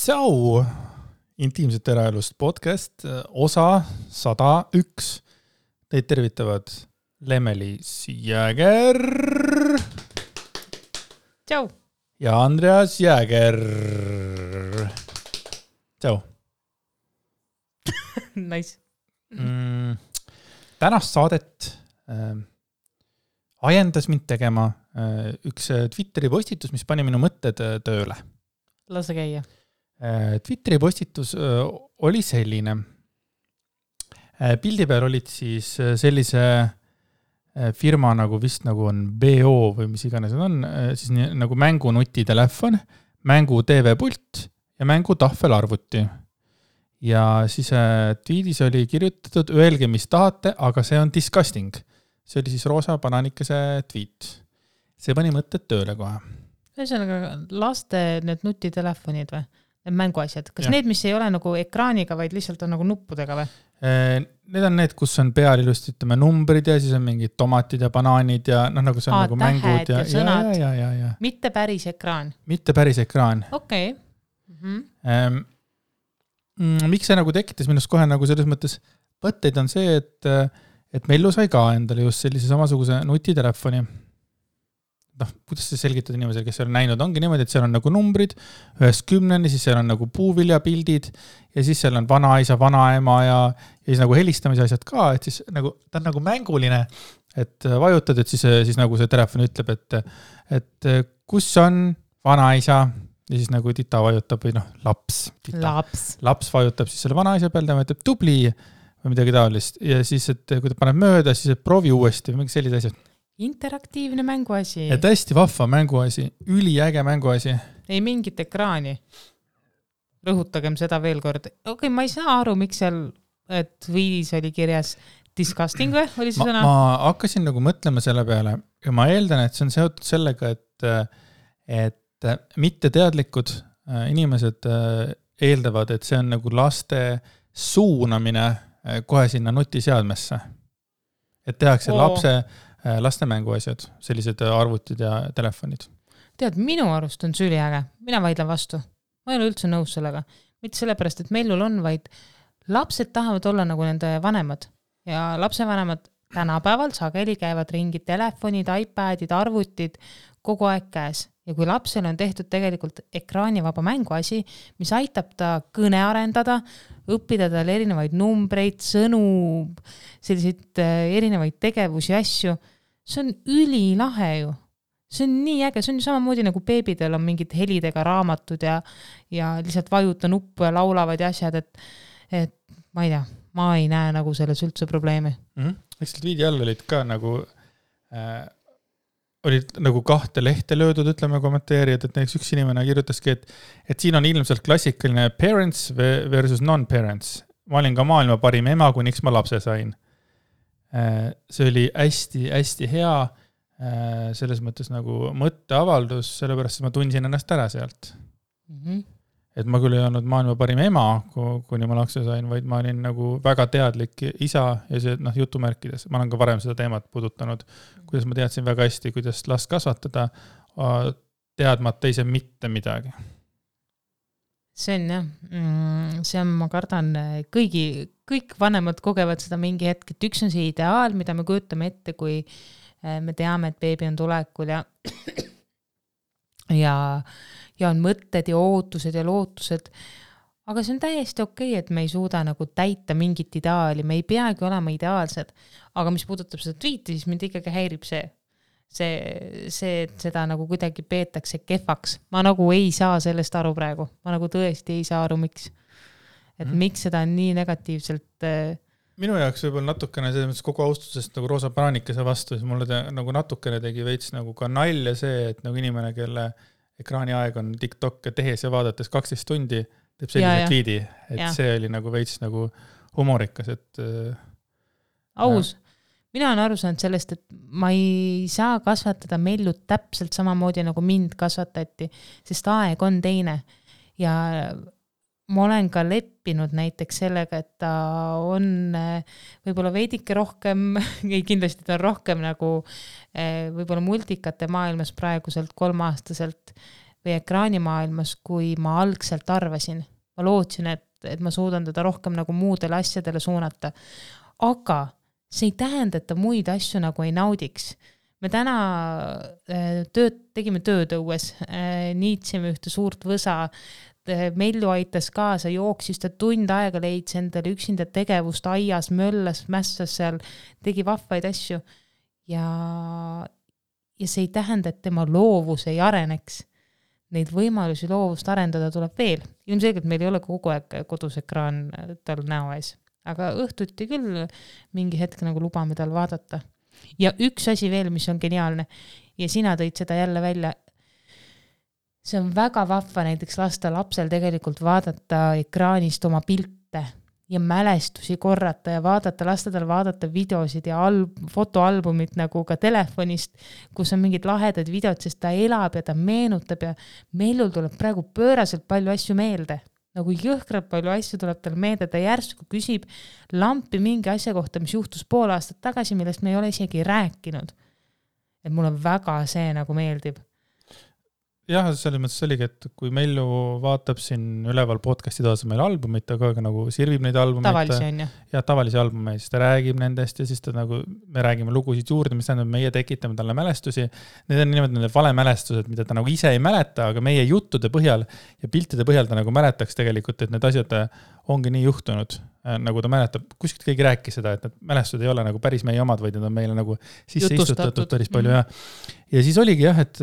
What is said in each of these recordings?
So, intiimset eraelust podcast, osa 101. Teid tervitavad Lemmelis Jääger. Tšau. Ja Andreas Jääger. Tšau. Nice. Tänast saadet ajendas mind tegema üks Twitteri postitus, mis pani minu mõtted tööle. Lase käia. Twitteri postitus oli selline. Pildi peal olid siis sellise firma nagu vist nagu on BO või mis iganes on, siis nagu mängunutitelefon, mängu TV-pult ja mängu tahvelarvuti. Ja siis tweetis oli kirjutatud, öelge mis tahate, aga see on disgusting. See oli siis Roosa Bananikese tweet. See pani mõtted tööle kohe. Ühesõnaga, laste need nutitelefonid või? Need mänguasjad. Kas need, mis ei ole nagu ekraaniga, vaid lihtsalt on nagu nuppudega või? Need on need, kus on peal ilusti, ütleme, numbrid ja siis on mingid tomatid ja banaanid ja nagu see on nagu mängud ja sõnad. Ja. Mitte päris ekraan. Mitte päris ekraan. Okei. Miks see nagu tekitas minust kohe nagu selles mõttes võtteid on see, et Mellu sai ka endale just sellise samasuguse nutitelefoni. Kuidas see selgitada inimesele, kes seal näinud ongi niimoodi, et seal on nagu numbrid 1-10, siis seal on nagu puuviljapildid ja siis seal on vanaisa, vanaema ja siis nagu helistamise asjad ka, et siis nagu, ta on nagu mänguline, et vajutad, et siis nagu see telefon ütleb, et kus on vanaisa ja siis nagu tita vajutab või laps vajutab siis selle vanaisa peal, ta ütleb tubli või midagi taolist ja siis, et kui ta paneb mööda, siis proovi uuesti või mingi sellised asjad. Interaktiivne mänguasi. Et hästi vahva mänguasi, üliäge mänguasi. Ei mingit ekraani. Rõhutagem seda veel kord. Okei, ma ei saa aru, miks seal tweetis oli kirjas disgusting või? Oli see sõna? Ma hakkasin nagu mõtlema selle peale ja ma eeldan, et see on seotud sellega, et mitteteadlikud inimesed eeldavad, et see on nagu laste suunamine kohe sinna nutiseadmesse. Et tehakse laste mänguasjad, sellised arvutid ja telefonid. Tead, minu arust on see üliäge. Mina vaidlen vastu. Ma ei ole üldse nõus sellega. Mitte sellepärast, et Mellul on, vaid lapsed tahavad olla nagu nende vanemad. Ja lapsevanemad tänapäeval sageli käivad ringi telefonid, iPadid, arvutid kogu aeg käes. Ja kui lapsel on tehtud tegelikult ekraanivaba mänguasi, mis aitab ta kõne arendada, õppida tal erinevaid numbreid, sõnu, selliseid erinevaid tegevusi ja asju, see on ülilahe ju. See on nii äge, see on ju samamoodi nagu beebidel on mingid helidega raamatud ja lihtsalt vajuta nuppu ja laulavad ja asjad, et ma ei tea, ma ei näe nagu selles üldse probleemi. Eks seal viidi all olid ka nagu olid nagu 2 lehte löödud, ütleme kommenteerijad, et näiteks üks inimene kirjutaski, et siin on ilmselt klassikaline parents versus non-parents. Ma olin ka maailma parim ema, kuniks ma lapse sain. See oli hästi hea selles mõttes nagu mõtteavaldus, sellepärast ma tundsin ennast ära sealt. Et ma küll ei olnud maailma parim ema, kuni ma lapse sain, vaid ma olin nagu väga teadlik isa ja see jutumärkides. Ma olen ka varem seda teemat puudutanud, kuidas ma teadsin väga hästi, kuidas last kasvatada, teadmata ise mitte midagi. See on jah, see on, ma kardan, kõik vanemad kogevad seda mingi hetk, et üks on see ideaal, mida me kujutame ette, kui me teame, et beebi on tulekul ja on mõtted ja ootused ja lootused, aga see on täiesti okei, et me ei suuda nagu täita mingit ideaali, me ei peagi olema ideaalsed, aga mis puudutab seda tweeti, siis mind ikkagi häirib see, et seda nagu kuidagi peetakse kehvaks. Ma nagu ei saa sellest aru praegu. Ma nagu tõesti ei saa aru, miks. Et miks seda on nii negatiivselt... Minu jaoks võib-olla natukene selles kogu austusest nagu Roosa Bananikese vastu, siis mulle nagu natukene tegi veits nagu ka nalja see, et nagu inimene, kelle ekraani aeg on TikTok tehes ja vaadates 12 tundi, teeb sellise tweedi, et see oli nagu veits nagu humorikas, et... Aus. Mina olen aru saanud sellest, et ma ei saa kasvatada Mellut täpselt samamoodi nagu mind kasvatati, sest aeg on teine. Ja ma olen ka leppinud näiteks sellega, et ta on võib-olla veidike rohkem, kindlasti ta on rohkem nagu võib-olla multikate maailmas praeguselt 3-aastaselt või ekraanimaailmas, kui ma algselt arvasin. Ma lootsin, et ma suudan teda rohkem nagu muudele asjadele suunata. Aga see ei tähenda, et ta muid asju nagu ei naudiks. Me täna tegime tööd õues, niitsime ühte suurt võsa, Mellu aitas kaasa, jooksis ta tund aega leidis endale üksinda tegevust aias, möllas, mässas seal, tegi vahvaid asju ja see ei tähenda, et tema loovus ei areneks. Neid võimalusi loovust arendada tuleb veel. Ilmselgelt meil ei ole kogu aeg kodus ekraan tal näo ees, aga õhtuti küll mingi hetk nagu lubame tal vaadata. Ja üks asi veel, mis on geniaalne ja sina tõid seda jälle välja, see on väga vahva näiteks lasta lapsel tegelikult vaadata ekraanist oma pilte ja mälestusi korrata ja lasta tal vaadata videosid ja fotoalbumit nagu ka telefonist, kus on mingid lahedad videod, sest ta elab ja ta meenutab ja Mellul tuleb praegu pööraselt palju asju meelde. Nagu jõhkralt palju asju tuleb tal meelde, ta järsku küsib lampi mingi asja kohta, mis juhtus pool aastat tagasi, millest me ei ole isegi rääkinud. Et mulle väga see nagu meeldib. Jah, selles mõttes oligi, et kui Mellu vaatab siin üleval podcasti taas meil albumit, aga nagu sirvib neid albumeid. Tavalisi on ju. Ja tavalisi albumeid, siis ta räägib nendest ja siis ta nagu, me räägime lugusid juurde, mis tähendab, meie tekitame talle mälestusi. Need on niimoodi need valemälestused, mida ta nagu ise ei mäleta, aga meie juttude põhjal ja piltide põhjal ta nagu mäletaks tegelikult, et need asjad ongi nii juhtunud, nagu ta mäletab. Kuskilt keegi rääkis seda, et need mälestused ei ole nagu päris meie omad, vaid need on meile nagu sisse istutatud päris palju. Ja siis oligi jah, et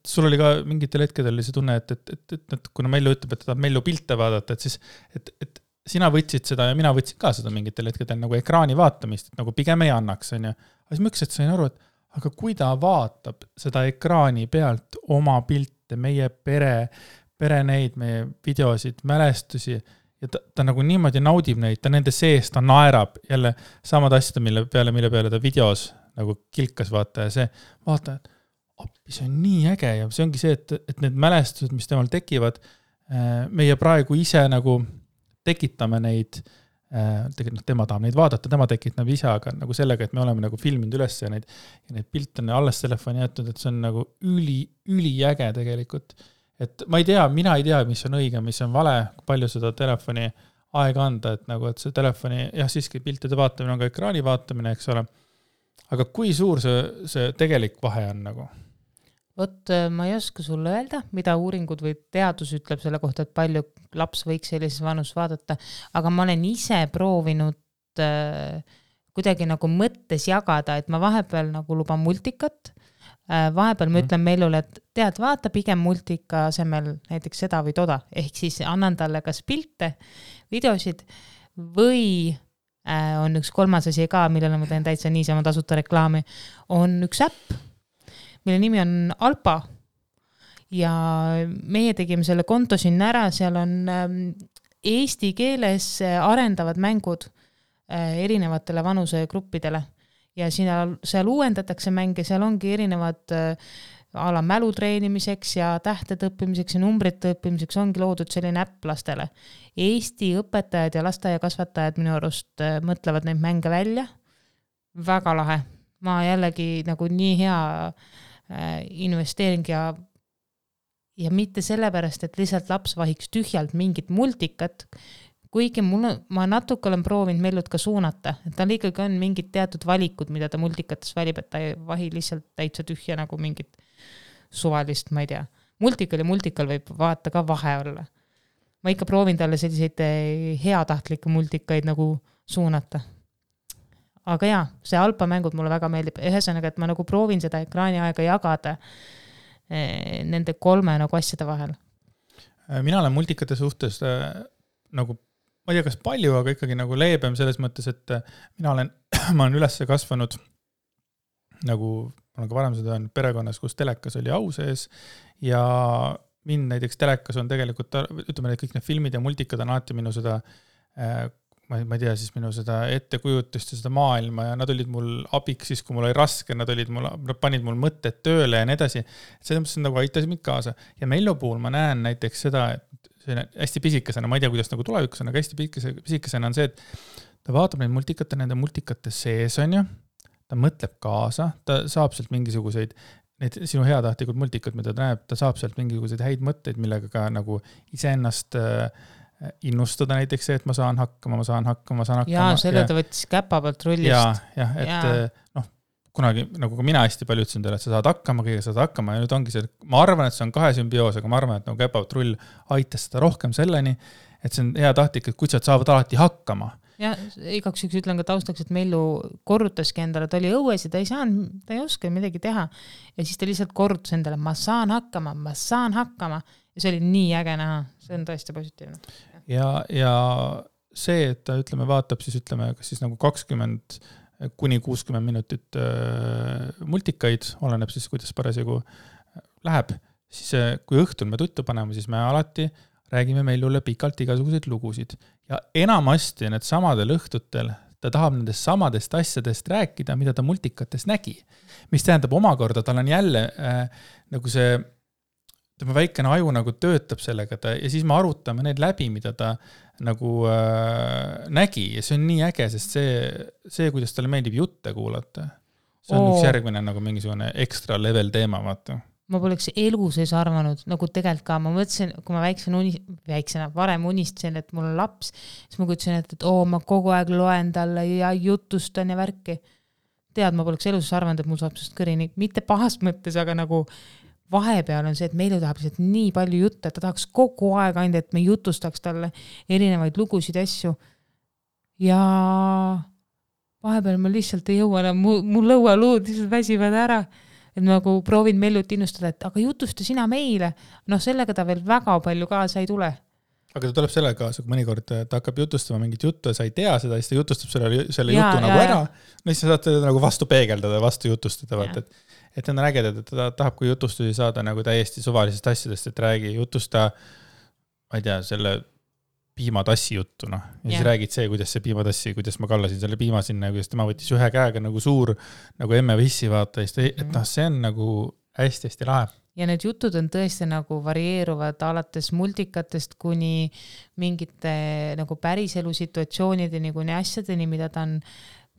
sul oli ka mingitel hetkedel oli see tunne, et kuna Mellu ütleb, et ta Mellu pilte vaadata, et siis, et sina võtsid seda ja mina võtsin ka seda mingitel hetkedel nagu ekraani vaatamist, et nagu pigem ei annaks, on ju. Aga siis ma ükselt sain aru, et aga kui ta vaatab seda ekraani pealt oma pilte, meie pere neid, meie videosid, mälestusi, ja ta nagu niimoodi naudib neid, ta nende sees, ta naerab jälle samad asjad, mille peale ta videos nagu kilkas vaata ja see vaata, et appi, see on nii äge ja see ongi see, et need mälestused, mis temal tekivad, meie praegu ise nagu tekitame neid, tegelikult tema tahab neid vaadata, tema tekitab ise, aga nagu sellega, et me oleme nagu filminud üles ja neid pilte on alles telefoni jätnud, et see on nagu üli äge tegelikult. Et mina ei tea, mis on õige, mis on vale, palju seda telefoni aega anda, et nagu, et see telefoni, jah, siiski piltide vaatamine on ka ekraani vaatamine, eks ole. Aga kui suur see tegelik vahe on nagu? Vot, ma ei oska sulle öelda, mida uuringud või teadus ütleb selle kohta, et palju laps võiks sellises vanus vaadata, aga ma olen ise proovinud kuidagi nagu mõttes jagada, et ma vahepeal nagu luban multikat, vahepeal ma ütlen Mellule, et tead, vaata pigem multika asemel näiteks seda või toda, ehk siis annan talle kas pilte, videosid või on üks kolmas asi ka, millele ma teen täitsa niisama tasuta reklaami, on üks äpp, mille nimi on Alpa ja meie tegime selle konto sinna ära, seal on eesti keeles arendavad mängud erinevatele vanusegruppidele ja seal uuendatakse mänge, seal ongi erinevad ala mälu treenimiseks ja tähtede õppimiseks ja numbrite õppimiseks ongi loodud selline äpp lastele. Eesti õpetajad ja lasteaiakasvatajad minu arust mõtlevad neid mänge välja. Väga lahe. Ma jällegi nagu nii hea investeering ja mitte sellepärast, et lihtsalt laps vahiks tühjalt mingit multikat, kuigi ma natuke olen proovinud Mellut ka suunata, et tal ikkagi on mingid teatud valikud, mida ta multikates valib, et ta ei vahi lihtsalt täitsa tühja nagu mingit suvalist, ma ei tea. Multikal võib vaata ka vahe olla. Ma ikka proovin talle selliseid heatahtlikke multikaid nagu suunata. Aga jaa, see Alpa mängud mulle väga meeldib. Ühesõnaga, et ma nagu proovin seda ekraani aega jagada nende 3 nagu asjade vahel. Mina olen multikate suhtes nagu, ma ei tea, kas palju, aga ikkagi nagu leebem selles mõttes, et ma olen üles kasvanud nagu, ma olen ka varem seda öelnud, perekonnas, kus telekas oli au sees ja mind näiteks telekas on tegelikult, ütleme, et kõik need filmid ja multikad on alati minu seda, ma ei tea, siis minu seda ettekujutust ja seda maailma ja nad olid mul abiks siis, kui mul oli raske, nad panid mul mõtted tööle ja nii edasi. Selles mõttes nagu aitasid mind kaasa. Ja Mellu puhul ma näen näiteks seda, et see hästi pisikesena, ma ei tea, kuidas nagu tulevikus on, aga hästi pisikesena on see, et ta vaatab neid multikate, nende multikate sees on ju, ta mõtleb kaasa, ta saab sealt mingisuguseid need sinu heatahtlikud multikad, mida ta näeb, ta saab sealt mingisuguseid häid mõtteid, millega ka nagu iseennast innustada näiteks see, et ma saan hakkama. Jaa, selle ta võttis käpa pealt rullist. Et kunagi, nagu ka mina hästi palju ütlesin teile, et sa saad hakkama, kõige saad hakkama ja nüüd ongi see, ma arvan, et see on kahe sümbioos, aga ma arvan, et nagu käpa pealt rull aitas seda rohkem selleni, et see on heatahtlik, et kutsad saavad alati hakkama. Ja igaks üks ütlen ka taustaks, et Mellu korrutaski endale, ta oli õues ja ta ei oska midagi teha. Ja siis ta lihtsalt korrutas endale, ma saan hakkama. Ja see oli nii äge näha, see on tõesti positiivne. Ja see, et ta ütleme, vaatab siis ütleme, kas siis nagu 20 kuni 60 minutit multikaid, oleneb siis, kuidas parasjagu läheb, siis kui õhtul me tuttu paneme, siis me alati räägime Mellule pikalt igasuguseid lugusid. Ja enamasti need samadel õhtutel ta tahab nendest samadest asjadest rääkida, mida ta multikatest nägi. Mis tähendab omakorda, tal on jälle nagu see tema väikene aju nagu töötab sellega ja siis me arutame need läbi, mida ta nagu nägi ja see on nii äge, sest see, kuidas talle meeldib jutte kuulata, see on üks järgmine nagu mingisugune ekstra level teema, vaata. Ma poleks elu sees arvanud, nagu tegelikult ka, ma mõtlesin, kui ma varem unistasin, et mul on laps, siis ma kutsin, et ma kogu aeg loen talle ja jutustan ja värki. Ma poleks elu sees arvanud, et mul saab sest kõrini, mitte pahast mõttes, aga nagu vahepeal on see, et Mellu tahab lihtsalt nii palju jutte, et ta tahaks kogu aeg ainult, et me jutustaks talle erinevaid lugusid ja asju. Ja vahepeal ma lihtsalt ei jõua, mul lõualuud lihtsalt väsivad ära. Et nagu proovin Mellut innustada, et aga jutusta sina meile. Sellega ta veel väga palju kaasa ei tule. Aga ta tuleb sellega kaasa, kui mõnikord ta hakkab jutustama mingit juttu ja sa ei tea seda, siis ta jutustab selle jutu nagu ära. Siis sa saad teda nagu vastu peegeldada, vastu jutustada. Et on ägedad, et ta tahab, kui jutustusi saada nagu täiesti suvalisest asjadest, et räägi jutusta, ma ei tea, selle piimatassi juttu, ja siis räägid see, kuidas see piimatassi, kuidas ma kallasin selle piima sinna, kuidas tema võttis ühe käega nagu suur, nagu emme vissi vaata, et see on nagu hästi-hästi lahe. Ja need jutud on tõesti nagu varieeruvad alates multikatest kuni mingite nagu päriselu situatsioonideni, kuni asjadeni, mida ta on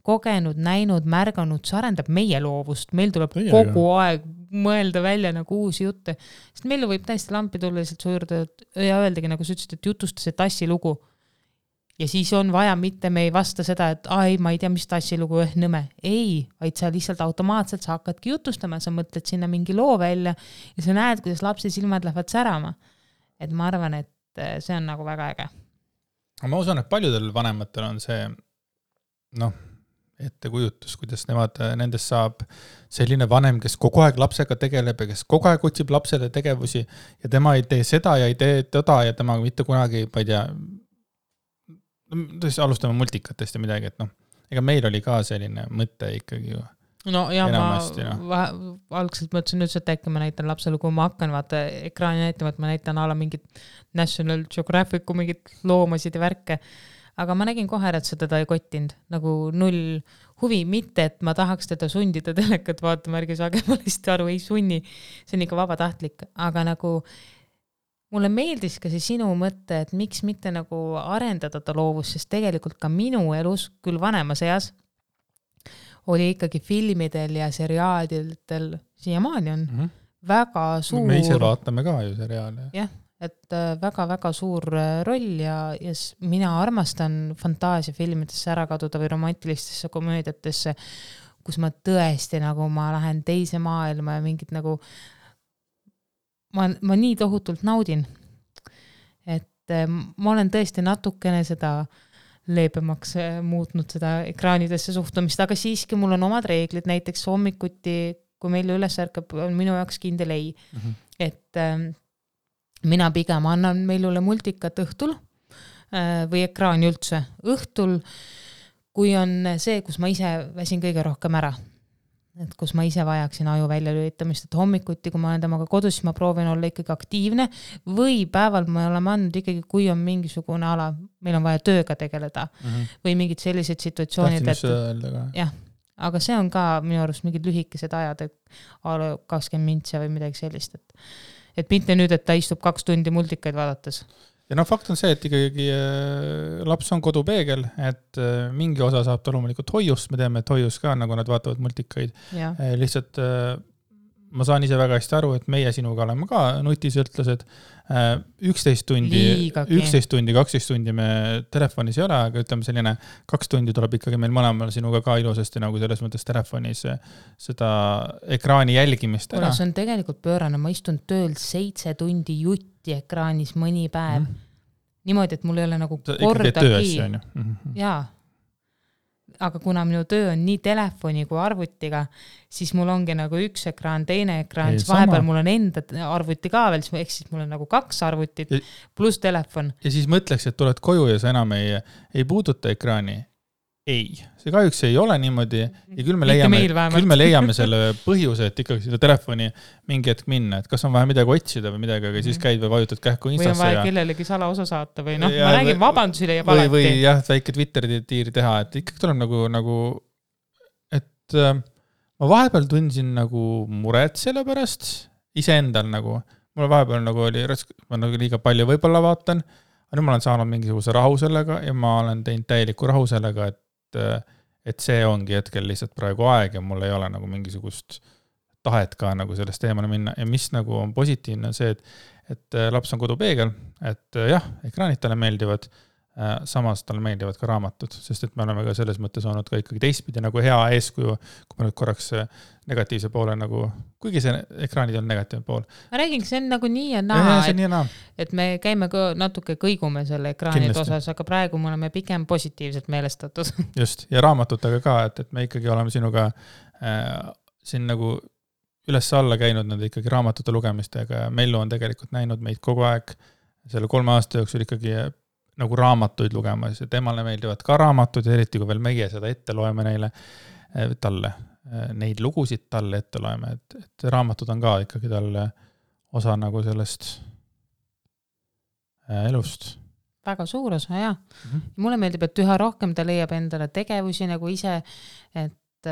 kogenud, näinud, märganud, see arendab meie loovust. Meil tuleb kogu aeg mõelda välja nagu uusi jutte. Sest Mellu võib täiesti lampi tulla lihtsalt su juurde ja öeldagi, nagu sa ütlesid, et jutusta see tassilugu. Ja siis on vaja, mitte me ei vasta seda, et ma ei tea, mis tassilugu nõme. Ei, vaid sa lihtsalt automaatselt sa hakkadki jutustama, sa mõtled sinna mingi loo välja ja sa näed, kuidas lapse silmad lähevad särama. Et ma arvan, et see on nagu väga äge. Ma usun, et paljudel vanematel on see ettekujutus, kuidas nendest saab selline vanem, kes kogu aeg lapsega tegeleb ja kes kogu aeg otsib lapsele tegevusi ja tema ei tee seda ja ei tee toda ja tema mitte kunagi, ma ei tea, alustame multikatest ja midagi, et ega meil oli ka selline mõte ikkagi ju. Enamasti, ma algselt mõtlesin nüüd, et äkki ma näitan lapsele, kui ma hakkan vaata ekraani näitama, et ma näitan ala mingit National Geographicu mingit loomasid ja värke. Aga ma nägin kohe, et seda ei kottinud, nagu null huvi, mitte, et ma tahaks teda sundida telekat vaatama, ärge saage ma lihtsalt aru, ei sunni, see on ikka vabatahtlik, aga nagu mulle meeldis ka see sinu mõte, et miks mitte nagu arendada ta loovus, sest tegelikult ka minu elus, küll vanemas eas, oli ikkagi filmidel ja seriaadidel, siiamaani on väga suur... Me ise vaatame ka ju seriaale. Jah. Et väga-väga suur roll ja mina armastan fantaasiafilmidesse ära kaduda või romantilistesse komöödiatesse, kus ma tõesti nagu ma lähen teise maailma ja mingid nagu ma nii tohutult naudin. Et ma olen tõesti natukene seda leebemaks muutnud seda ekraanidesse suhtumist, aga siiski mul on omad reeglid, näiteks hommikuti, kui meil üles ärkab, on minu jaoks kindel ei. Et mina pigem annan Mellule multikat õhtul või ekraani üldse. Õhtul, kui on see, kus ma ise väsin kõige rohkem ära. Et kus ma ise vajaksin aju välja lülitamist, et hommikuti, kui ma olen temaga kodus, siis ma proovin olla ikkagi aktiivne või päeval me oleme andnud ikkagi, kui on mingisugune ala, meil on vaja tööga tegeleda või mingid sellised situatsioonid. Tahtsin just öelda ka. Jah, aga see on ka minu arust mingid lühikesed ajad, et 20 mintse või midagi sellist, et mitte nüüd, et ta istub 2 tundi multikaid vaadates. Ja fakt on see, et ikkagi laps on kodupeegel, et mingi osa saab ta loomulikult hoiust, me teame, et hoius ka, nagu nad vaatavad multikaid. Lihtsalt ma saan ise väga hästi aru, et meie sinuga oleme ka nutisõltlased. 11 tundi, 12 tundi me telefonis ei ole, aga ütleme selline 2 tundi tuleb ikkagi meil mõlemal sinuga ka ilusasti nagu selles mõttes telefonis seda ekraani jälgimist ära. See on tegelikult pöörane, ma istun tööl 7 tundi jutti ekraanis mõni päev. Niimoodi, et mul ei ole nagu kordagi. Jaa. Aga kuna minu töö on nii telefoni kui arvutiga, siis mul ongi nagu üks ekraan, teine ekraan, siis vahepeal mul on enda arvuti ka veel, siis mul on nagu 2 arvutit pluss telefon. Ja siis mõtleks, et tuled koju ja sa enam ei puuduta ekraani. Ei, see kahjuks ei ole niimoodi ja küll me leiame selle põhjuse, et ikkagi seda telefoni mingi hetk minna, et kas on vaja midagi otsida või midagi, aga siis käid või vajutad kähku Instasse. Või on vaja kellelegi salaosa saata või noh, ma räägin vabandusi leiab alati. Või jah, väike Twitteri-tiiri teha, et ikkagi tuleb nagu et ma vahepeal tundsin nagu muret selle pärast iseendal nagu, mul vahepeal nagu oli ma nagu liiga palju võib-olla vaatan, aga nüüd ma olen saanud mingisuguse rahu sellega ja ma olen teinud täieliku rahu sellega, et see ongi hetkel lihtsalt praegu aeg ja mul ei ole nagu mingisugust tahet ka nagu sellest teemale minna ja mis nagu on positiivne on see, et laps on kodupeegel, et jah, ekraanid talle meeldivad, samas talle meeldivad ka raamatud, sest et me oleme ka selles mõttes olnud ka ikkagi teistpidi nagu hea eeskuju, kui me nüüd korraks negatiivse poole nagu, kuigi see ekraanid on negatiivne pool. Ma räägin, see on nagu nii ja naa, et me käime ka natuke kõigume selle ekraanid osas, aga praegu me oleme pigem positiivselt meelestatud. Just, ja raamatutega ka, et me ikkagi oleme sinuga siin nagu üles alla käinud nende ikkagi raamatute lugemistega ja Mellu on tegelikult näinud meid kogu aeg selle 3 aasta jooksul ikkagi nagu raamatuid lugemas ja temale meeldivad ka raamatud ja eriti kui veel meie seda ette loeme talle, neid lugusid talle ette loeme, et raamatud on ka ikkagi talle osa nagu sellest elust. Väga suur osa, jah. Mulle meeldib, et üha rohkem ta leiab endale tegevusi nagu ise, et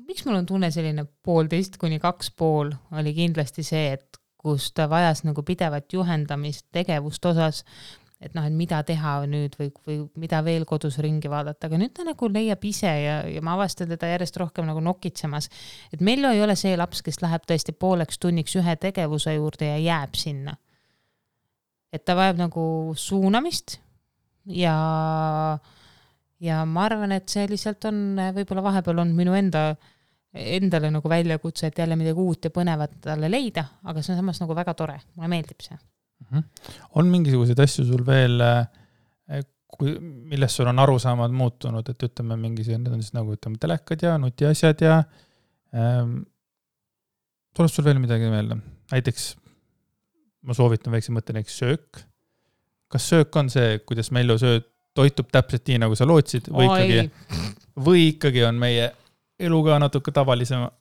miks mul on tunne selline 1,5 kuni 2,5 oli kindlasti see, et kus ta vajas nagu pidevat juhendamist tegevust osas, et noh, et mida teha nüüd või mida veel kodus ringi vaadata, aga nüüd ta nagu leiab ise ja ma avastan teda järjest rohkem nagu nokitsemas, et Mello ei ole see laps, kes läheb tõesti 1,5 tunniks ühe tegevuse juurde ja jääb sinna. Et ta vajab nagu suunamist ja ma arvan, et see lihtsalt on võib-olla vahepeal on minu endale nagu väljakutse, et jälle midagi uut ja põnevat talle leida, aga see on samas nagu väga tore, mulle meeldib see. On mingisuguseid asju sul veel, millest sul on arusaamad muutunud, et ütleme mingisugused, need on siis nagu ütleme telekad ja nutiasjad ja tuleb sul veel midagi meelde? Näiteks ma soovitan väikse mõtte näiteks söök. Kas söök on see, kuidas Mellu toitub täpselt nii, nagu sa lootsid või ikkagi on meie eluga natuke tavalisema?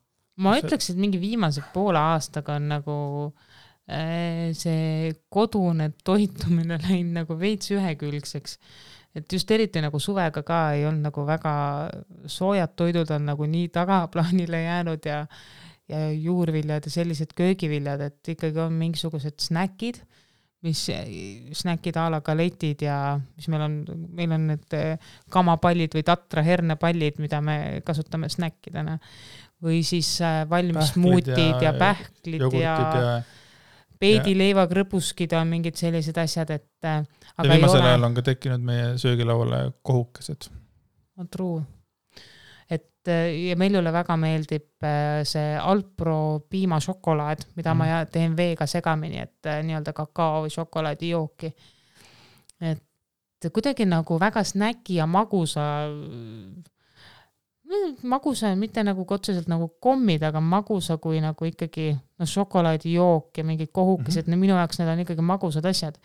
Ma ütleks, et mingi viimase 1,5 aastaga on nagu see kodune toitumine läinud nagu veits ühekülgseks. Et just eriti nagu suvega ka ei olnud nagu väga soojad toidud on nagu nii tagaplaanile jäänud ja juurviljad ja sellised köögiviljad, et ikkagi on mingisugused snäkid, mis snäkid a la galetid ja mis meil on need kamapallid või tatra hernepallid, mida me kasutame snäkkidena. Või siis valmis smuutid ja pähklid ja peedileiva krõbuskid on mingid sellised asjad, et aga viimasel ajal on ka tekkinud meie söögilauale kohukesed. True. Ja Mellule väga meeldib see Alpro piimašokolaad, mida ma teen veega segamini, et nii-öelda kakao või šokolaadi jooki. Et kuidagi nagu väga snäki ja magusa, mitte nagu otseselt nagu kommid, aga magusa kui nagu ikkagi šokolaadi jook ja mingid kohukesed, minu jaoks need on ikkagi magusad asjad.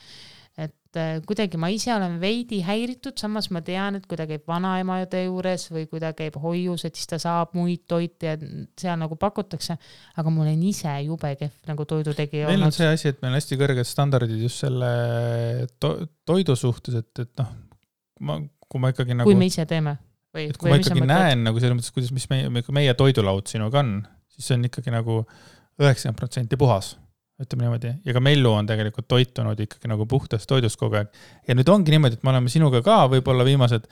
Et kuidagi ma ise olen veidi häiritud, samas ma tean, et kui ta käib vanaemade juures või kui ta käib hoius, et siis ta saab muid toite ja seal nagu pakutakse, aga mul on ise jube kehv nagu toidutegi meil on see asi, et meil on hästi kõrged standardid just selle toidu suhtes, et noh, kui ma ikkagi nagu kui me ise teeme et kui ma ikkagi näen nagu selles mõttes, kuidas meie toidulaud sinuga on, siis see on ikkagi nagu 90% puhas. Ütleme niimoodi. Ja ka Mellu on tegelikult toitunud ikkagi nagu puhtast toidust kogu aeg. Ja nüüd ongi niimoodi, et me oleme sinuga ka võib-olla viimased,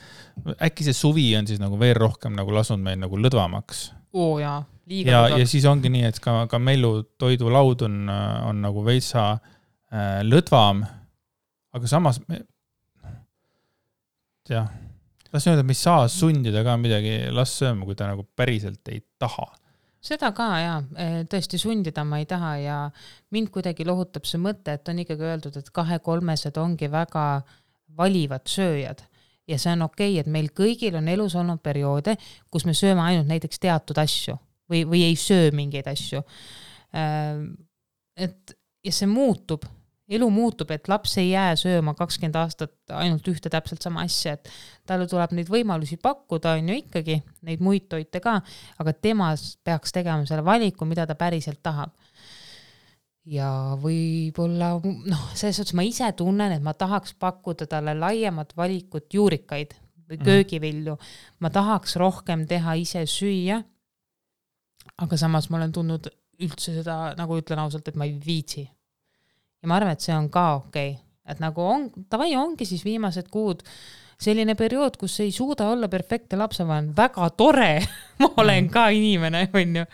äkki see suvi on siis nagu veel rohkem nagu lasunud meil nagu lõdvamaks. Oo jaa, ja siis ongi nii, et ka Mellu toidulaud on nagu veitsa lõdvam, aga samas las öelda, me ei saa sundida ka midagi las sööma, kui ta nagu päriselt ei taha. Seda ka, tõesti sundida ma ei taha ja mind kuidagi lohutab see mõte, et on ikkagi öeldud, et 2-3-sed ongi väga valivad sööjad ja see on okei, et meil kõigil on elus olnud perioode, kus me sööme ainult näiteks teatud asju või ei söö mingeid asju. Ja see muutub, elu muutub, et laps ei jää sööma 20 aastat ainult ühte täpselt sama asja, et talle tuleb neid võimalusi pakkuda, on ju ikkagi neid muid toite ka, aga tema peaks tegema selle valiku, mida ta päriselt tahab. Ja võib-olla, selles suhtes ma ise tunnen, et ma tahaks pakkuda talle laiemat valikut juurikaid või köögivilju. Ma tahaks rohkem teha ise süüa, aga samas ma olen tundnud üldse seda, nagu ütlen ausalt, et ma ei viitsi. Ja ma arvan, et see on ka okei. Et nagu ongi siis viimased kuud selline periood, kus ei suuda olla perfektne lapsevanem. Väga tore, ma olen ka inimene, on ju.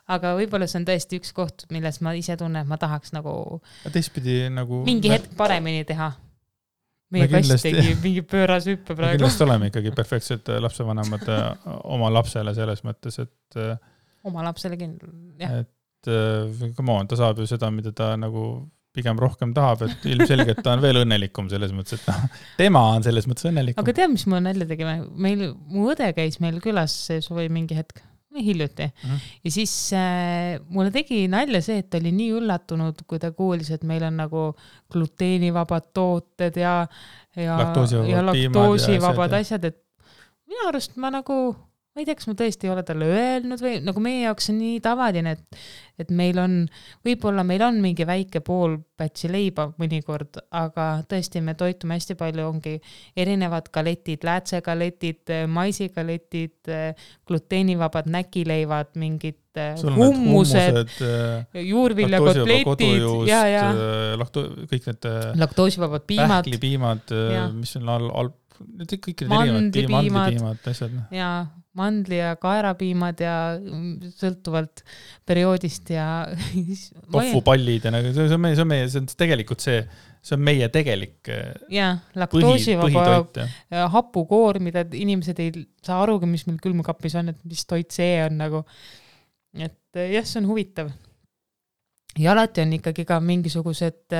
Aga võib-olla see on tõesti üks koht, milles ma ise tunnen, et ma tahaks nagu teistpidi nagu mingi hetk paremini teha. Meie kast tegi mingi pööras hüppe praegu. Me kindlasti oleme ikkagi perfektsed lapsevanemad oma lapsele selles mõttes, et oma lapsele jah. Et come on, ta saab ju seda, mida ta nagu pigem rohkem tahab, et ilmselgelt ta on veel õnnelikum selles mõttes, et tema on selles mõttes õnnelikum. Aga tead, mis me nälja tegime? Mu õde käis meil külas või mingi hetk, hiljuti. Ja siis mulle tegi nalja see, et ta oli nii üllatunud, kui ta kuulis, et meil on nagu gluteenivabad tooted ja laktoosivabad asjad, et minu arust ma nagu ma ei tea, kas ma tõesti ei ole talle öelnud või nagu meie jaoks on nii tavaline, et meil on, võib-olla meil on mingi väike pool pätsi leiba mõnikord, aga tõesti me toitume hästi palju, ongi erinevad galetid, läätsegaletid, maisigaletid, gluteenivabad näkileivad, mingid hummused, juurviljakotletid, kõik need laktoosivabad piimad, pähklipiimad, mis on kõik mandlipiimad asjad. Ja mandli- ja kaerapiimad ja sõltuvalt perioodist ja tofupallid ja nagu, see on tegelikult see on meie tegelik laktoosivaba hapukoor, mida inimesed ei saa arugi, mis meil külmkapis on, et mis toit see on nagu, et jah, see on huvitav. Ja alati on ikkagi ka mingisugused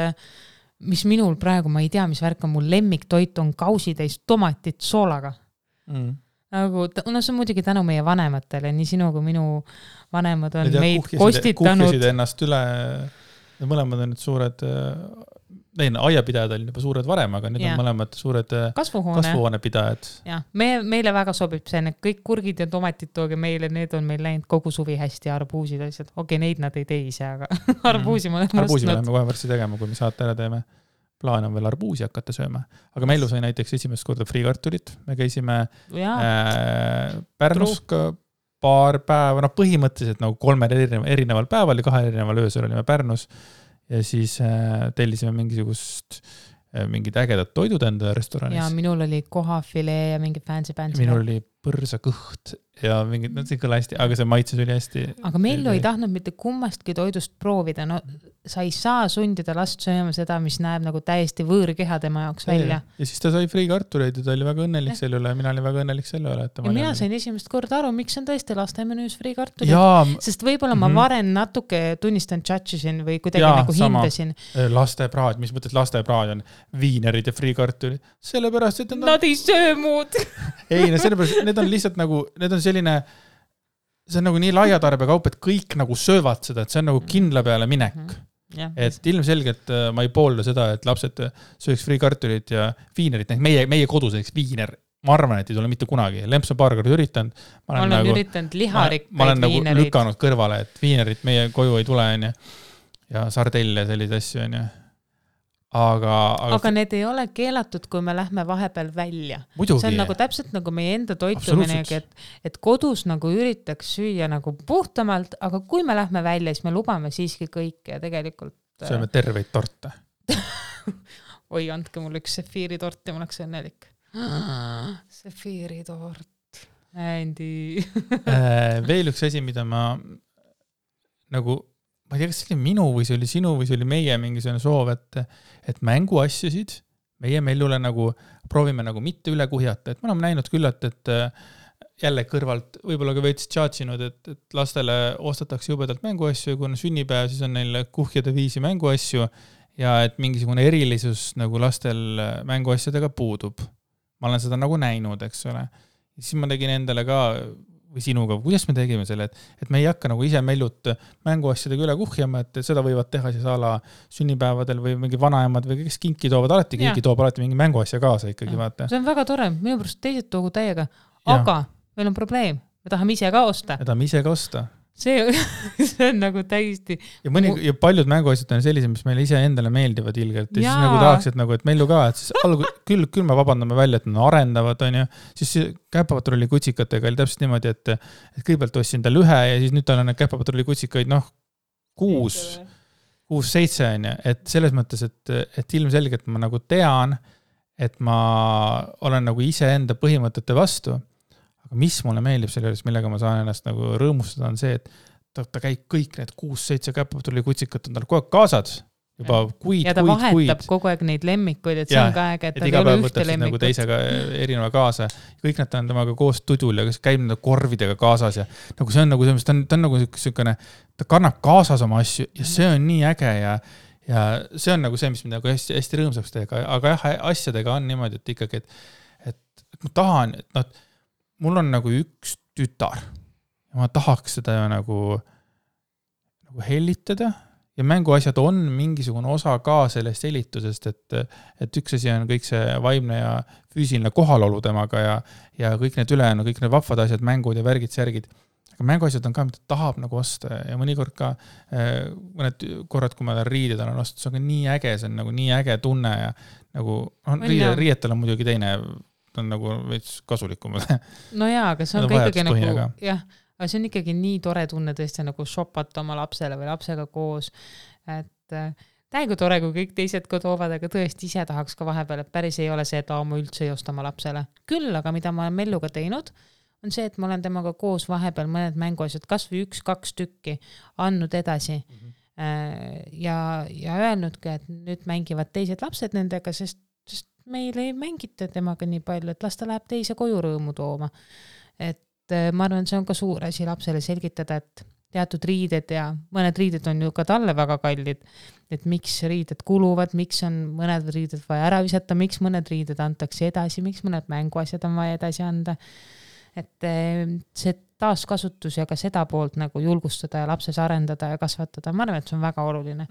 mis minul praegu, ma ei tea, mis värk on, mul lemmiktoit on kausitäis tomatit soolaga. Nagu, see on muidugi tänu meie vanematele, nii sinu kui minu vanemad on meid kostitanud. Kuhkisid ennast üle, mõlemad on nüüd suured, aiapidajad olid juba suured varem, aga nüüd on mõlemad suured kasvuhoonepidajad. Ja, meile väga sobib see, kõik kurgid ja tomatid tooge meile, need on meil läinud kogu suvi hästi, arbuusid asjad. Okei, neid nad ei tee ise, aga arbuusi ma olen Arbuusi me läheme kohe varsti tegema, kui me saate ära teeme. Plaan on veel arbuusi hakata sööma. Aga Mellu sai näiteks esimest korda friikartulit. Me käisime Pärnus paar päeva, põhimõtteliselt nagu 3 erineval päeval ja 2 erineval öösel olime Pärnus ja siis tellisime mingid ägedad toidud enda restoranis. Ja minul oli kohafilee ja mingi fancy. Minul oli põrsakõht ja mingid, see kõla hästi, aga see maitses oli hästi. Aga Mellu ei tahtnud mitte kummastki toidust proovida. No, sa ei saa sundida last sööma seda, mis näeb nagu täiesti võõrkeha tema jaoks välja. Ja siis ta sai friikartuleid ja ta oli väga õnnelik selle üle. Mina olin väga õnnelik selle üle. Ja mina sain esimest korda aru, miks on tõesti lastemenüüs friikartulid. Sest võib-olla ma varem natuke tunnistan judgesin või kuidagi nagu hindasin. Lastepraad, mis mõttes lastepraad on viinerid ja friikartulid. Sellepärast, et nad ei söö muud. Ei, sellepärast, need on lihtsalt nagu, need on selline, see on nagu nii laiatarbekaup, et kõik nagu söövad seda, et see on nagu kindla peale minek. Et ilmselgelt ma ei poolda seda, et lapsed sööks friikartulit ja viinerit, meie koduseks viiner, ma arvan, et ei tule mitte kunagi. Lemps on paar korda üritanud. Ma olen üritanud liharikkaid viinerit. Ma olen nagu lükanud kõrvale, et viinerit meie koju ei tule ja sardelle ja sellised asju on. Aga need ei ole keelatud, kui me lähme vahepeal välja. Muidugi. See on nagu täpselt nagu meie enda toituminegi, et kodus nagu üritaks süüa nagu puhtamalt, aga kui me lähme välja, siis me lubame siiski kõik ja tegelikult... Sööme terveid torte. Oi, andke mulle üks sefiiritort ja ma oleks õnnelik. Sefiiritort. Andy. Veel üks asi, mida ma nagu, ma ei tea, kas see oli minu või see oli sinu või see oli meie mingisugune soov, et mänguasjusid meie Mellule nagu proovime nagu mitte üle kuhjata, et me oleme näinud küllalt, et jälle kõrvalt võib-olla ka veits tšaatsinud, et lastele ostetakse jubedalt mänguasju ja kui on sünnipäev, siis on neil kuhjade viisi mänguasju ja et mingisugune erilisus nagu lastel mänguasjadega puudub. Ma olen seda nagu näinud, eks ole. Ja siis ma tegin endale ka või sinuga, kuidas me tegime selle, et me ei hakka nagu ise Mellut mänguasjadega üle kuhjama, et seda võivad teha siis ala sünnipäevadel või mingi vanaemad või kes kinki toovad, alati keegi toob alati mingi mänguasja kaasa ikkagi, vaata. See on väga tore, minu pärast teised toogu täiega, aga meil on probleem, me tahame ise ka osta. Me tahame ise ka osta. See on nagu täiesti... Ja paljud mänguasjad on sellised, mis meile ise endale meeldivad ilgelt. Ja siis nagu tahaks, et, nagu, et Mellu ka, et siis küll me vabandame välja, et nad arendavad, on ju. Siis käpapatrulli kutsikatega oli täpselt niimoodi, et kõigepealt ostsin tal ühe ja siis nüüd tal on käpapatrulli kutsikaid 6-7 on ju. Et selles mõttes, et ilmselgelt ma nagu tean, et ma olen nagu ise enda põhimõtete vastu. Aga mis mulle meeldib selle juures, millega ma saan ennast nagu rõõmustada, on see, et ta käib kõik need 6-7 käpapatrulli kutsikat on tal kogu aeg kaasad. Juba kuid. Ja ta vahetab kogu aeg neid lemmikuid, et see on ka aeg, et ta ei ole ühte lemmikut. Nagu teisega erineva kaasa. Kõik nad on temaga koos tudul ja käib nende korvidega kaasas. Ja nagu see on nagu see, ta on nagu selline, ta kannab kaasas oma asju ja see on nii äge ja see on nagu see, mis mind nagu hästi, hästi rõõmsaks teeb. Aga jah, asjadega on niimoodi, et ikkagi, et ma tahan, et mul on nagu üks tütar ja ma tahaks seda nagu hellitada ja mänguasjad on mingisugune osa ka sellest hellitusest, et üks asi on kõik see vaimne ja füüsiline kohalolu temaga ja kõik need ülejäänu, kõik need vahvad asjad, mängud ja värgid, särgid. Aga mänguasjad on ka, mida tahab nagu osta ja mõnikord ka mõned korrad, kui ma riided olen ostud, see on ka nii äge, see on nagu nii äge tunne ja nagu riietel on muidugi teine on nagu veits kasulikumad. No jaa, aga see on ka ikkagi nagu, jah, aga see on ikkagi nii tore tunne tõesti nagu shopata oma lapsele või lapsega koos, et täiega tore, kui kõik teised ka toovad, aga tõesti ise tahaks ka vahepeal, et päris ei ole see, et ma üldse ei osta oma lapsele. Küll, aga mida ma olen Melluga teinud, on see, et ma olen temaga koos vahepeal mõned mänguasjad, kas või 1-2 tükki andnud edasi ja öelnudki, et nüüd mängivad teised lapsed nendega, sest meil ei mängita temaga nii palju, et las ta läheb teise koju rõõmu tooma. Et ma arvan, see on ka suur asi lapsele selgitada, et teatud riided ja mõned riided on ju ka talle väga kallid, et miks riided kuluvad, miks on mõned riided vaja ära visata, miks mõned riided antakse edasi, miks mõned mänguasjad on vaja edasi anda. Et see taaskasutus ja ka seda poolt nagu julgustada ja lapses arendada ja kasvatada, ma arvan, et see on väga oluline.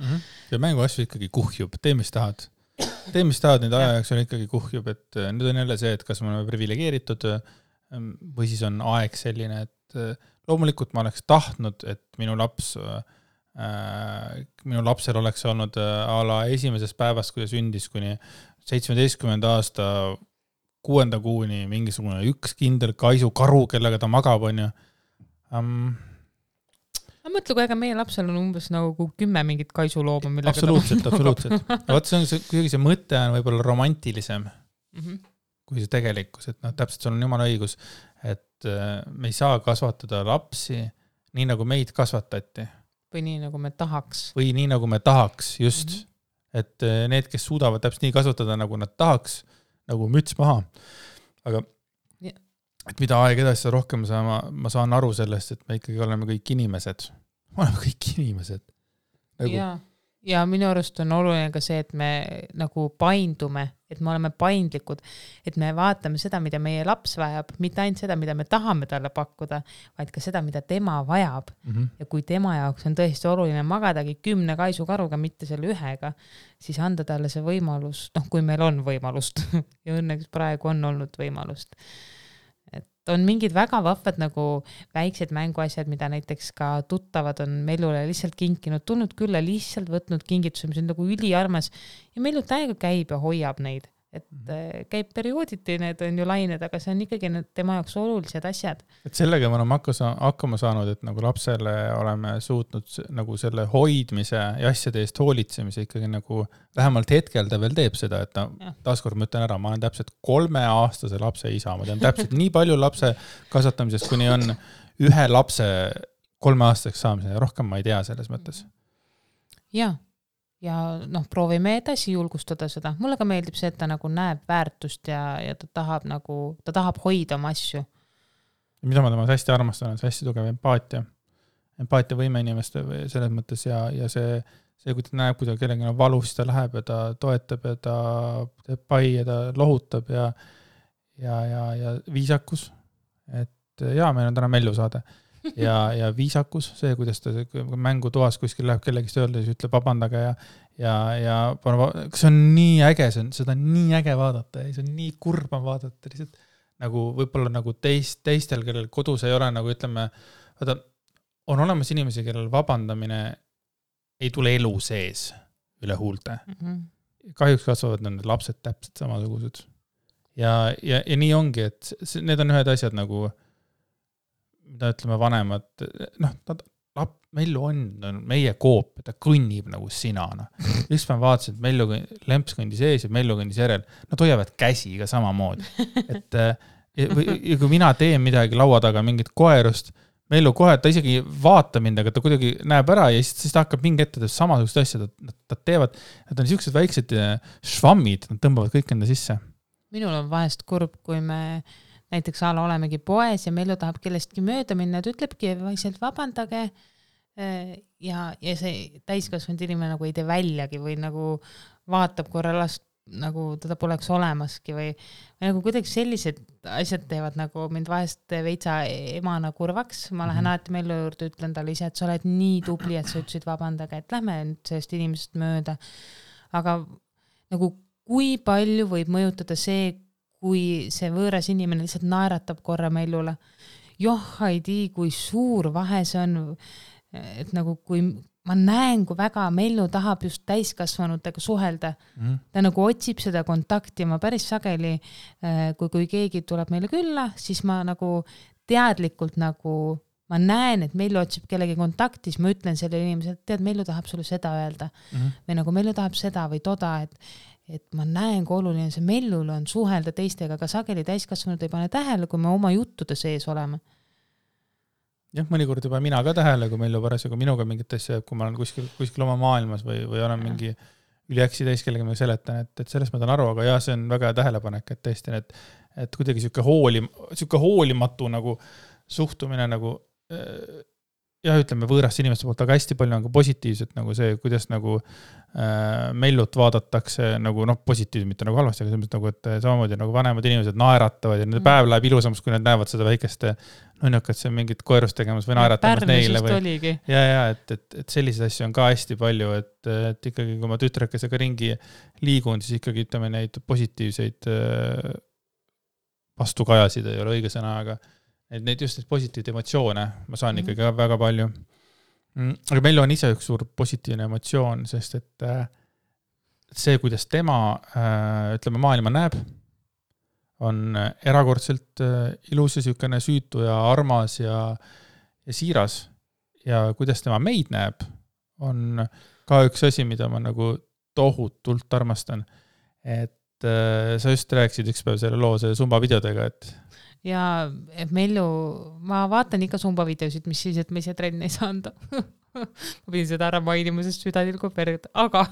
Ja mänguasju ikkagi kuhjub, tee mis tahad. Nüüd aja jaoks on ikkagi kuhjub, et nüüd on jälle see, et kas me oleme privilegeeritud või siis on aeg selline, et loomulikult ma oleks tahtnud, et minu lapsel oleks olnud ala esimesest päevast, kui ta sündis kuni 17. aasta 6. kuuni mingisugune üks kindel kaisukaru, kellega ta magab, on ju. Ma mõtlen, kui ega meie lapsel on umbes nagu 10 mingit kaisulooma, millega absoluutselt. Vaat see mõte on võib-olla romantilisem kui see tegelikkus, et täpselt sul on jumala õigus, et me ei saa kasvatada lapsi nii, nagu meid kasvatati. Või nii, nagu me tahaks. Või nii, nagu me tahaks, just. Et need, kes suudavad täpselt nii kasvatada, nagu nad tahaks, nagu müts maha. Aga et mida aeg edasi seda rohkem ma saan aru sellest, et me ikkagi oleme kõik inimesed. Me oleme kõik inimesed. Nagu... Ja minu arust on oluline ka see, et me nagu paindume, et me oleme paindlikud, et me vaatame seda, mida meie laps vajab, mitte ainult seda, mida me tahame talle pakkuda, vaid ka seda, mida tema vajab. Ja kui tema jaoks on tõesti oluline magadagi 10 kaisukaruga, mitte selle ühega, siis anda talle see võimalus, kui meil on võimalust ja õnneks praegu on olnud võimalust. On mingid väga vahvad nagu väiksed mänguasjad, mida näiteks ka tuttavad on Mellule lihtsalt kinkinud, tulnud külla, lihtsalt võtnud kingituse, mis on nagu üliarmas ja Mellu täiega käib ja hoiab neid. et käib periooditi, need on ju lained, aga see on ikkagi need tema jaoks olulised asjad. Et sellega me oleme hakkama saanud, et nagu lapsele oleme suutnud nagu selle hoidmise ja asjade eest hoolitsemise ikkagi nagu vähemalt hetkel ta veel teeb seda, et taaskord ma ütlen ära, ma olen täpselt 3-aastase lapse isa, ma tean täpselt nii palju lapse kasvatamisest, kuni on ühe lapse 3-aastaseks saamiseni, rohkem ma ei tea selles mõttes. Ja proovime edasi julgustada seda. Mulle ka meeldib see, et ta nagu näeb väärtust ja ta tahab hoida oma asju. Mida ma temas hästi armastan, on see hästi tugev empaatia. Empaatia võime inimeste selles mõttes ja see, kui ta näeb, kui ta kellegi on valus, ta läheb ja ta toetab ja ta teeb pai ja ta lohutab ja viisakus. Et meil on täna Mellu saade. Ja viisakus, see, kuidas ta mängu toas kuskil läheb kellegist öelda, siis ütleb vabandage ja see on nii äge, seda on nii äge vaadata ja see on nii kurba vaadata lihtsalt nagu võib-olla nagu teistel, kellel kodus ei ole nagu ütleme, on olemas inimesi, kellel vabandamine ei tule elu sees üle huulte. Kahjuks kasvavad need lapsed täpselt samasugused ja nii ongi, et need on ühed asjad nagu mida ütleme vanemad, Mellu on meie koop, ta kõnnib nagu sinana. Üks ma vaatasin, et Mellu lemps kõndis ees ja Mellu kõndis järel. Nad hoiavad käsi ka samamoodi. Et kui mina teen midagi laua taga, mingit koerust, Mellu kohe, ta isegi vaata mind, aga ta kuidagi näeb ära ja siis ta hakkab mingi ette samasugust asja, nad teevad, nad on siuksed väiksed švammid, nad tõmbavad kõik enda sisse. Minul on vahest kurb, kui me näiteks olemegi poes ja Mellu tahab kellestki mööda minna, et ütlebki vaikselt vabandage ja see täiskasvanud inimene nagu ei tee väljagi või nagu vaatab korra last, nagu teda poleks olemaski või nagu kuidagi sellised asjad teevad nagu mind vahest veitsa emana kurvaks. Ma lähen alati Mellu juurde, ütlen talle ise, et sa oled nii tubli, et sa ütlesid vabandage, et lähme nüüd sellest inimesest mööda. Aga nagu kui palju võib mõjutada see, kui see võõras inimene lihtsalt naeratab korra Mellule. Ei tii, kui suur vahe see on, et nagu kui ma näen, kui väga Mellu tahab just täiskasvanutega suhelda. Ta nagu otsib seda kontakti ja ma päris sageli, kui keegi tuleb meile külla, siis ma nagu teadlikult nagu ma näen, et Mellu otsib kellegi kontakti, siis ma ütlen selle inimesele, et tead, Mellu tahab sulle seda öelda. Või nagu Mellu tahab seda või toda, et ma näen, kui oluline see Mellul on suhelda teistega, aga sageli täiskasvanud ei pane tähele, kui me oma juttude sees oleme. Jah, mõnikord juba mina ka tähele, kui Mellu parasjagu minuga mingit asja, kui ma olen kuskil oma maailmas või olen mingi üliäksi täis, kellega ma seletan, et sellest ma tahan aru, aga jah, see on väga tähelepanek, et tõesti, et kuidagi siuke hoolimatu nagu suhtumine nagu ütleme võõrast inimeste poolt, aga hästi palju on ka positiivset nagu see, kuidas nagu Mellut vaadatakse nagu positiivselt, mitte nagu halvasti, aga selles nagu, et samamoodi nagu vanemad inimesed naeratavad ja nende päev läheb ilusamaks, kui nad näevad seda väikest nunnakat, see mingit koerust tegemas või naeratamas neile. Et selliseid asju on ka hästi palju, et ikkagi kui ma tütrekesega ringi liigun, siis ikkagi ütleme neid positiivseid vastukajasid ei ole õige sõna, aga neid just neid positiivseid emotsioone ma saan ikkagi väga palju. Aga meil on ise üks suur positiivne emotsioon, sest et see, kuidas tema ütleme, maailma näeb, on erakordselt ilus ja sükene süütu ja armas ja siiras. Ja kuidas tema meid näeb, on ka üks asi, mida ma nagu tohutult armastan. Et sa just rääkisid üks päev selle loo selle Zumba videodega, et ja Mellu, ma vaatan ikka Zumba videosid, mis siis, et me ise trenni ei saanud. Ma pidin seda ära mainima, sest süda tilgub verd, aga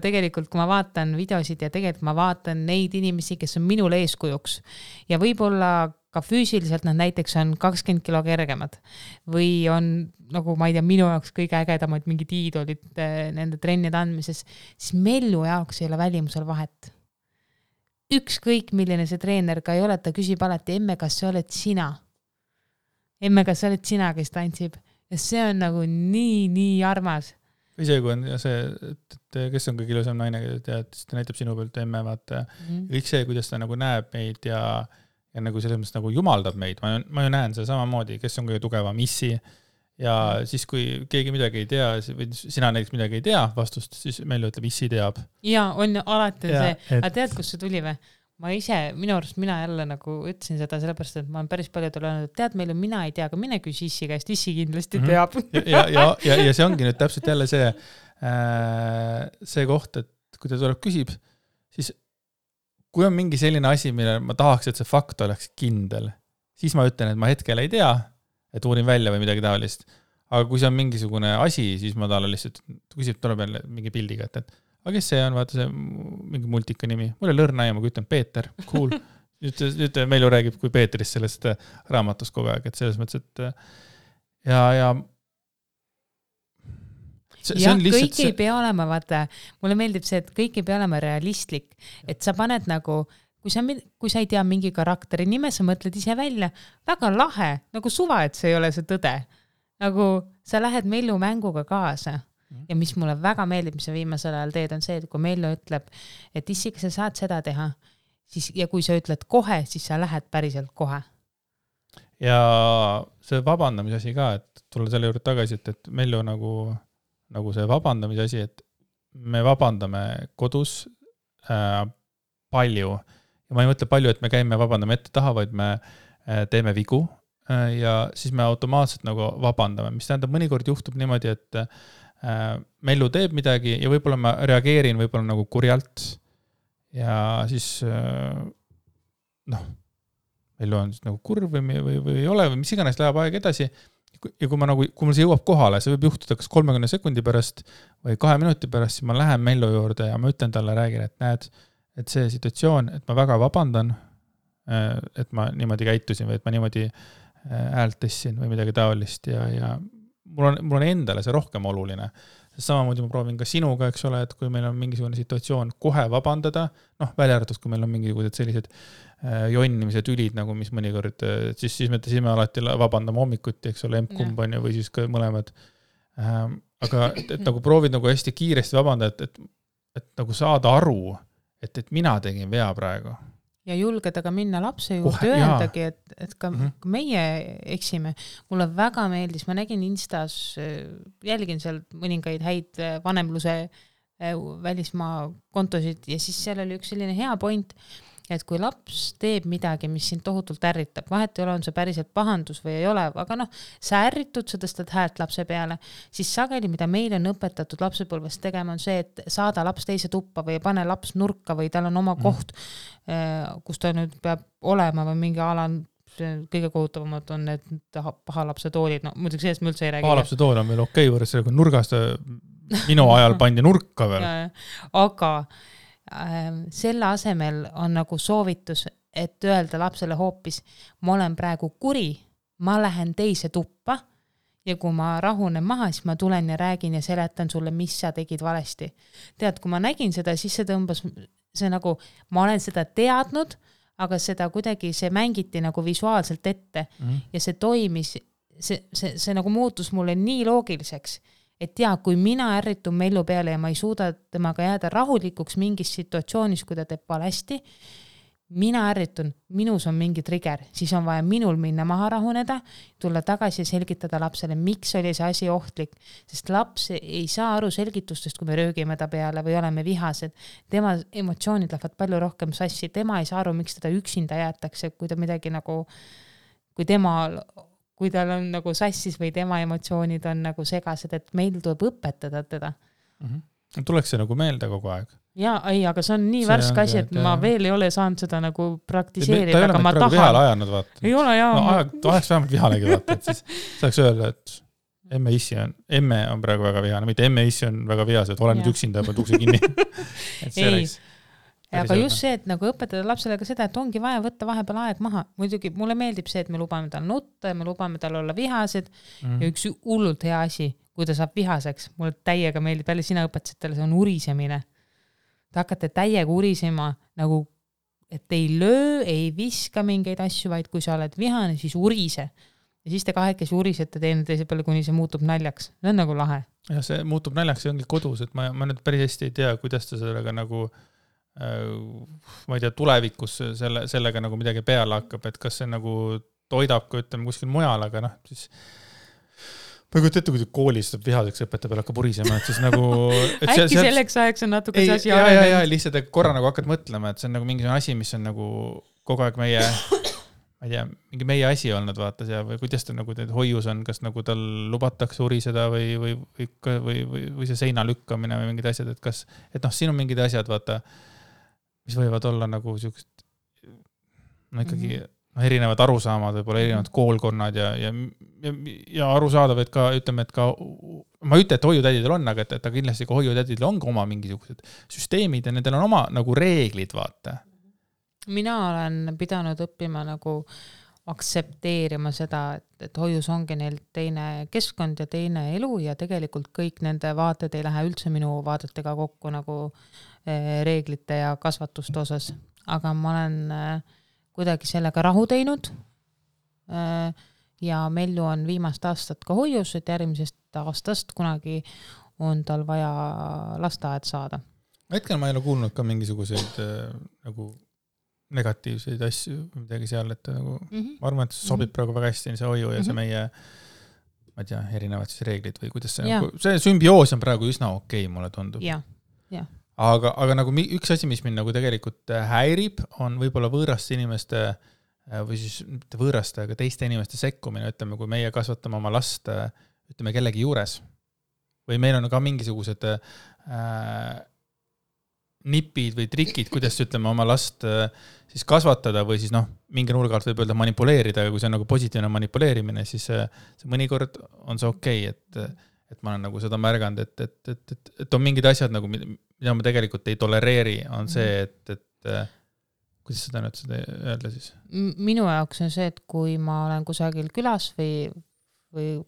tegelikult, kui ma vaatan videosid ja tegelikult ma vaatan neid inimesi, kes on minul eeskujuks ja võib-olla ka füüsiliselt nad näiteks on 20 kilo kergemad või on, nagu ma ei tea, minu jaoks kõige ägedamad mingid iidolid nende trennide andmises, siis Mellu jaoks ei ole välimusel vahet. Ükskõik, milline see treener ka ei ole, ta küsib alati, emme, kas sa oled sina? Emme, kas sa oled sina, kes tantsib? Ja see on nagu nii armas. Või see, kui on see, et kes on kõige ilusam naine, ta näitab sinu pealt emme, vaata. Kõik see, kuidas ta nagu näeb meid ja nagu selles mõttes nagu jumaldab meid. Ma ju näen seda samamoodi, kes on kõige tugevam issi ja siis, kui keegi midagi ei tea, või sina näiteks midagi ei tea vastust, siis Mellu ütleb, issi teab. Ja, on alati Ja, see. Aga tead, kus see tuli või? Ma ise, minu arust mina jälle nagu ütlesin seda sellepärast, et ma olen päris paljudel öelnud, et tead, Mellu, mina ei tea, aga mine küsi Issi käest, Issi kindlasti teab. Ja see ongi nüüd täpselt jälle see koht, et kui ta tuleb küsib, siis kui on mingi selline asi, mille ma tahaks, et see fakt oleks kindel, siis ma ütlen, et ma hetkel ei tea, et uurin välja või midagi taolist. Aga kui see on mingisugune asi, siis ma talle lihtsalt küsib, tuleb jälle mingi pildiga, et aga kes see on, vaata see mingi multika nimi. Mul ei lõrna ja ma ütlen Peeter, cool. Nüüd Mellu räägib kui Peetrist sellest raamatust kogu aeg, et selles mõttes, et ja see on lihtsalt kõik ei pea olema, vaata, mulle meeldib see, et kõik ei pea olema realistlik, et sa paned nagu, kui sa ei tea mingi karakteri nime, sa mõtled ise välja, väga lahe, nagu suva, et see ei ole see tõde. Nagu sa lähed Mellu mänguga kaasa. Ja mis mulle väga meeldib, mis sa viimasel ajal teed, on see, et kui Mellu ütleb, et Issi, kas sa saad seda teha, siis, ja kui sa ütled kohe, siis sa lähed päriselt kohe. Ja see vabandamise asi ka, et tulla selle juurde tagasi, et Mellu nagu see vabandamise asi, et me vabandame kodus palju. Ja ma ei mõtle palju, et me käime vabandame ette taha, vaid me teeme vigu ja siis me automaatselt nagu vabandame, mis tähendab, mõnikord juhtub niimoodi, et Mellu teeb midagi ja võib-olla ma reageerin võib-olla nagu kurjalt ja siis Mellu on nagu kurv või ei ole või mis iganes läheb aeg edasi ja kui mul see jõuab kohale, see võib juhtuda kas 30 sekundi pärast või 2 minuti pärast, siis ma lähen Mellu juurde ja ma ütlen talle, räägin, et näed, et see situatsioon, et ma väga vabandan, et ma niimoodi käitusin või et ma niimoodi häält tõstsin või midagi taolist ja mul on endale see rohkem oluline. Samamoodi ma proovin ka sinuga, eks ole, et kui meil on mingisugune situatsioon kohe vabandada, välja arvatud, kui meil on mingisugused sellised jonnimised ülid, nagu mis mõnikord, siis me alati vabandame hommikuti, eks ole, emb-kumb on ju, või siis ka mõlemad. Aga et nagu proovid nagu hästi kiiresti vabandada, et nagu saada aru, et mina tegin vea praegu. Ja julgeda ka minna lapse juurde öeldagi, et ka meie eksime. Mulle väga meeldis, ma nägin Instas, jälgin seal mõningaid häid vanemluse välismaa kontosid ja siis seal oli üks selline hea point, et kui laps teeb midagi, mis sind tohutult ärritab, vahet ei ole, on see päriselt pahandus või ei ole, aga sa ärritud, sa tõstad häält lapse peale, siis sageli, mida meil on õpetatud lapsepõlvest tegema, on see, et saada laps teise tuppa või pane laps nurka või tal on oma koht, kus ta nüüd peab olema või mingi ala, kõige kohutavamad on need paha lapse toolid, muidugi sellest me üldse ei räägi. Paha lapse tool on veel okei võrres, kui nurgast minu ajal pandi nurka veel. Aga selle asemel on nagu soovitus, et öelda lapsele hoopis, ma olen praegu kuri, ma lähen teise tuppa ja kui ma rahunen maha, siis ma tulen ja räägin ja seletan sulle, mis sa tegid valesti. Tead, kui ma nägin seda, siis see tõmbas, see nagu, ma olen seda teadnud, aga seda kuidagi, see mängiti nagu visuaalselt ette ja see toimis, see nagu muutus mulle nii loogiliseks, et kui mina ärritun Mellu peale ja ma ei suuda temaga jääda rahulikuks mingis situatsioonis, kui ta teeb valesti, mina ärritun, minus on mingi trigger, siis on vaja minul minna maha rahuneda, tulla tagasi ja selgitada lapsele, miks oli see asi ohtlik, sest laps ei saa aru selgitustest, kui me röögime ta peale või oleme vihased. Tema emotsioonid lähevad palju rohkem sassi, tema ei saa aru, miks teda üksinda jäetakse, kui ta midagi nagu, kui tal on nagu sassis või tema emotsioonid on nagu segased, et meil tuleb õpetada teda. Tuleks see nagu meelde kogu aeg. Aga see on nii värske asi, et ma veel ei ole saanud seda nagu praktiseerida, ta ei aga ma tahan. Vihale ajanud, vaata. Ei ole, Oleks vähemalt vihalegi, vaata, et siis saaks öelda, et emme on praegu väga vihane, mitte emme issi on väga vihased, olen nüüd üksinda, pead ukse kinni. Et see oleks. Aga just see, et nagu õpetada lapsele ka seda, et ongi vaja võtta vahepeal aeg maha. Muidugi mulle meeldib see, et me lubame tal nutta ja me lubame tal olla vihased ja üks hullult hea asi, kui ta saab vihaseks, mulle täiega meeldib, jälle sina õpetasid talle, see on urisemine. Te hakkate täiega urisema, nagu, et ei löö, ei viska mingeid asju, vaid kui sa oled vihane, siis urise. Ja siis te kahekesi urisete teine teise peale, kuni see muutub naljaks. See on nagu lahe. Ja see muutub naljaks, see ongi kodus, et ma nüüd päris hästi ei tea, kuidas ta sellega nagu ma ei tea, tulevikus sellega nagu midagi peale hakkab, et kas see nagu toidab ka, ütleme, kuskil mujal, aga siis ma ei kujuta ette, kui koolis saab vihaseks õpetaja peale hakkab purisema, et siis nagu... äkki selleks ajaks on natuke see asi ja, lihtsalt korra nagu hakkad mõtlema, et see on nagu mingisugune asi, mis on nagu kogu aeg meie, ma ei tea, mingi meie asi olnud vaata seal või kuidas ta nagu hoius on, kas nagu tal lubatakse uriseda või see seina lükkamine või mingid asjad, et kas, et noh, siin on mingid asjad, vaata, mis võivad olla nagu siukest, no ikkagi erinevad arusaamad, võib-olla erinevad koolkonnad ja arusaadav, et ka, ütleme, et ka, ma ei ütle, et hoiutädidel on, aga et kindlasti ka hoiutädidel on ka oma mingisugused süsteemid ja nendel on oma nagu reeglid, vaata. Mina olen pidanud õppima nagu aktsepteerima seda, et hoius ongi neil teine keskkond ja teine elu ja tegelikult kõik nende vaated ei lähe üldse minu vaadetega kokku nagu reeglite ja kasvatuste osas. Aga ma olen kuidagi sellega rahu teinud ja Mellu on viimast aastat ka hoius, et järgmisest aastast kunagi on tal vaja lasteaed saada. Hetkel ma ei ole kuulnud ka mingisuguseid nagu negatiivseid asju või midagi seal, et nagu, ma arvan, et see sobib praegu väga hästi see hoiu ja see meie, ma ei tea, erinevad siis reeglid või kuidas see, nagu, see sümbioos on praegu üsna okei, mulle tundub. Aga nagu üks asi, mis mind nagu tegelikult häirib, on võib-olla võõraste inimeste või siis mitte võõraste, aga teiste inimeste sekkumine, ütleme, kui meie kasvatame oma last, ütleme, kellegi juures. Või meil on ka mingisugused nipid või trikid, kuidas ütleme oma last siis kasvatada või siis noh, mingi nurga alt võib öelda manipuleerida, aga kui see on nagu positiivne manipuleerimine, siis see mõnikord on see okei, et ma olen nagu seda märganud, et on mingid asjad nagu, mida ma tegelikult ei tolereeri, on see, et kuidas seda nüüd seda öelda siis? Minu jaoks on see, et kui ma olen kusagil külas või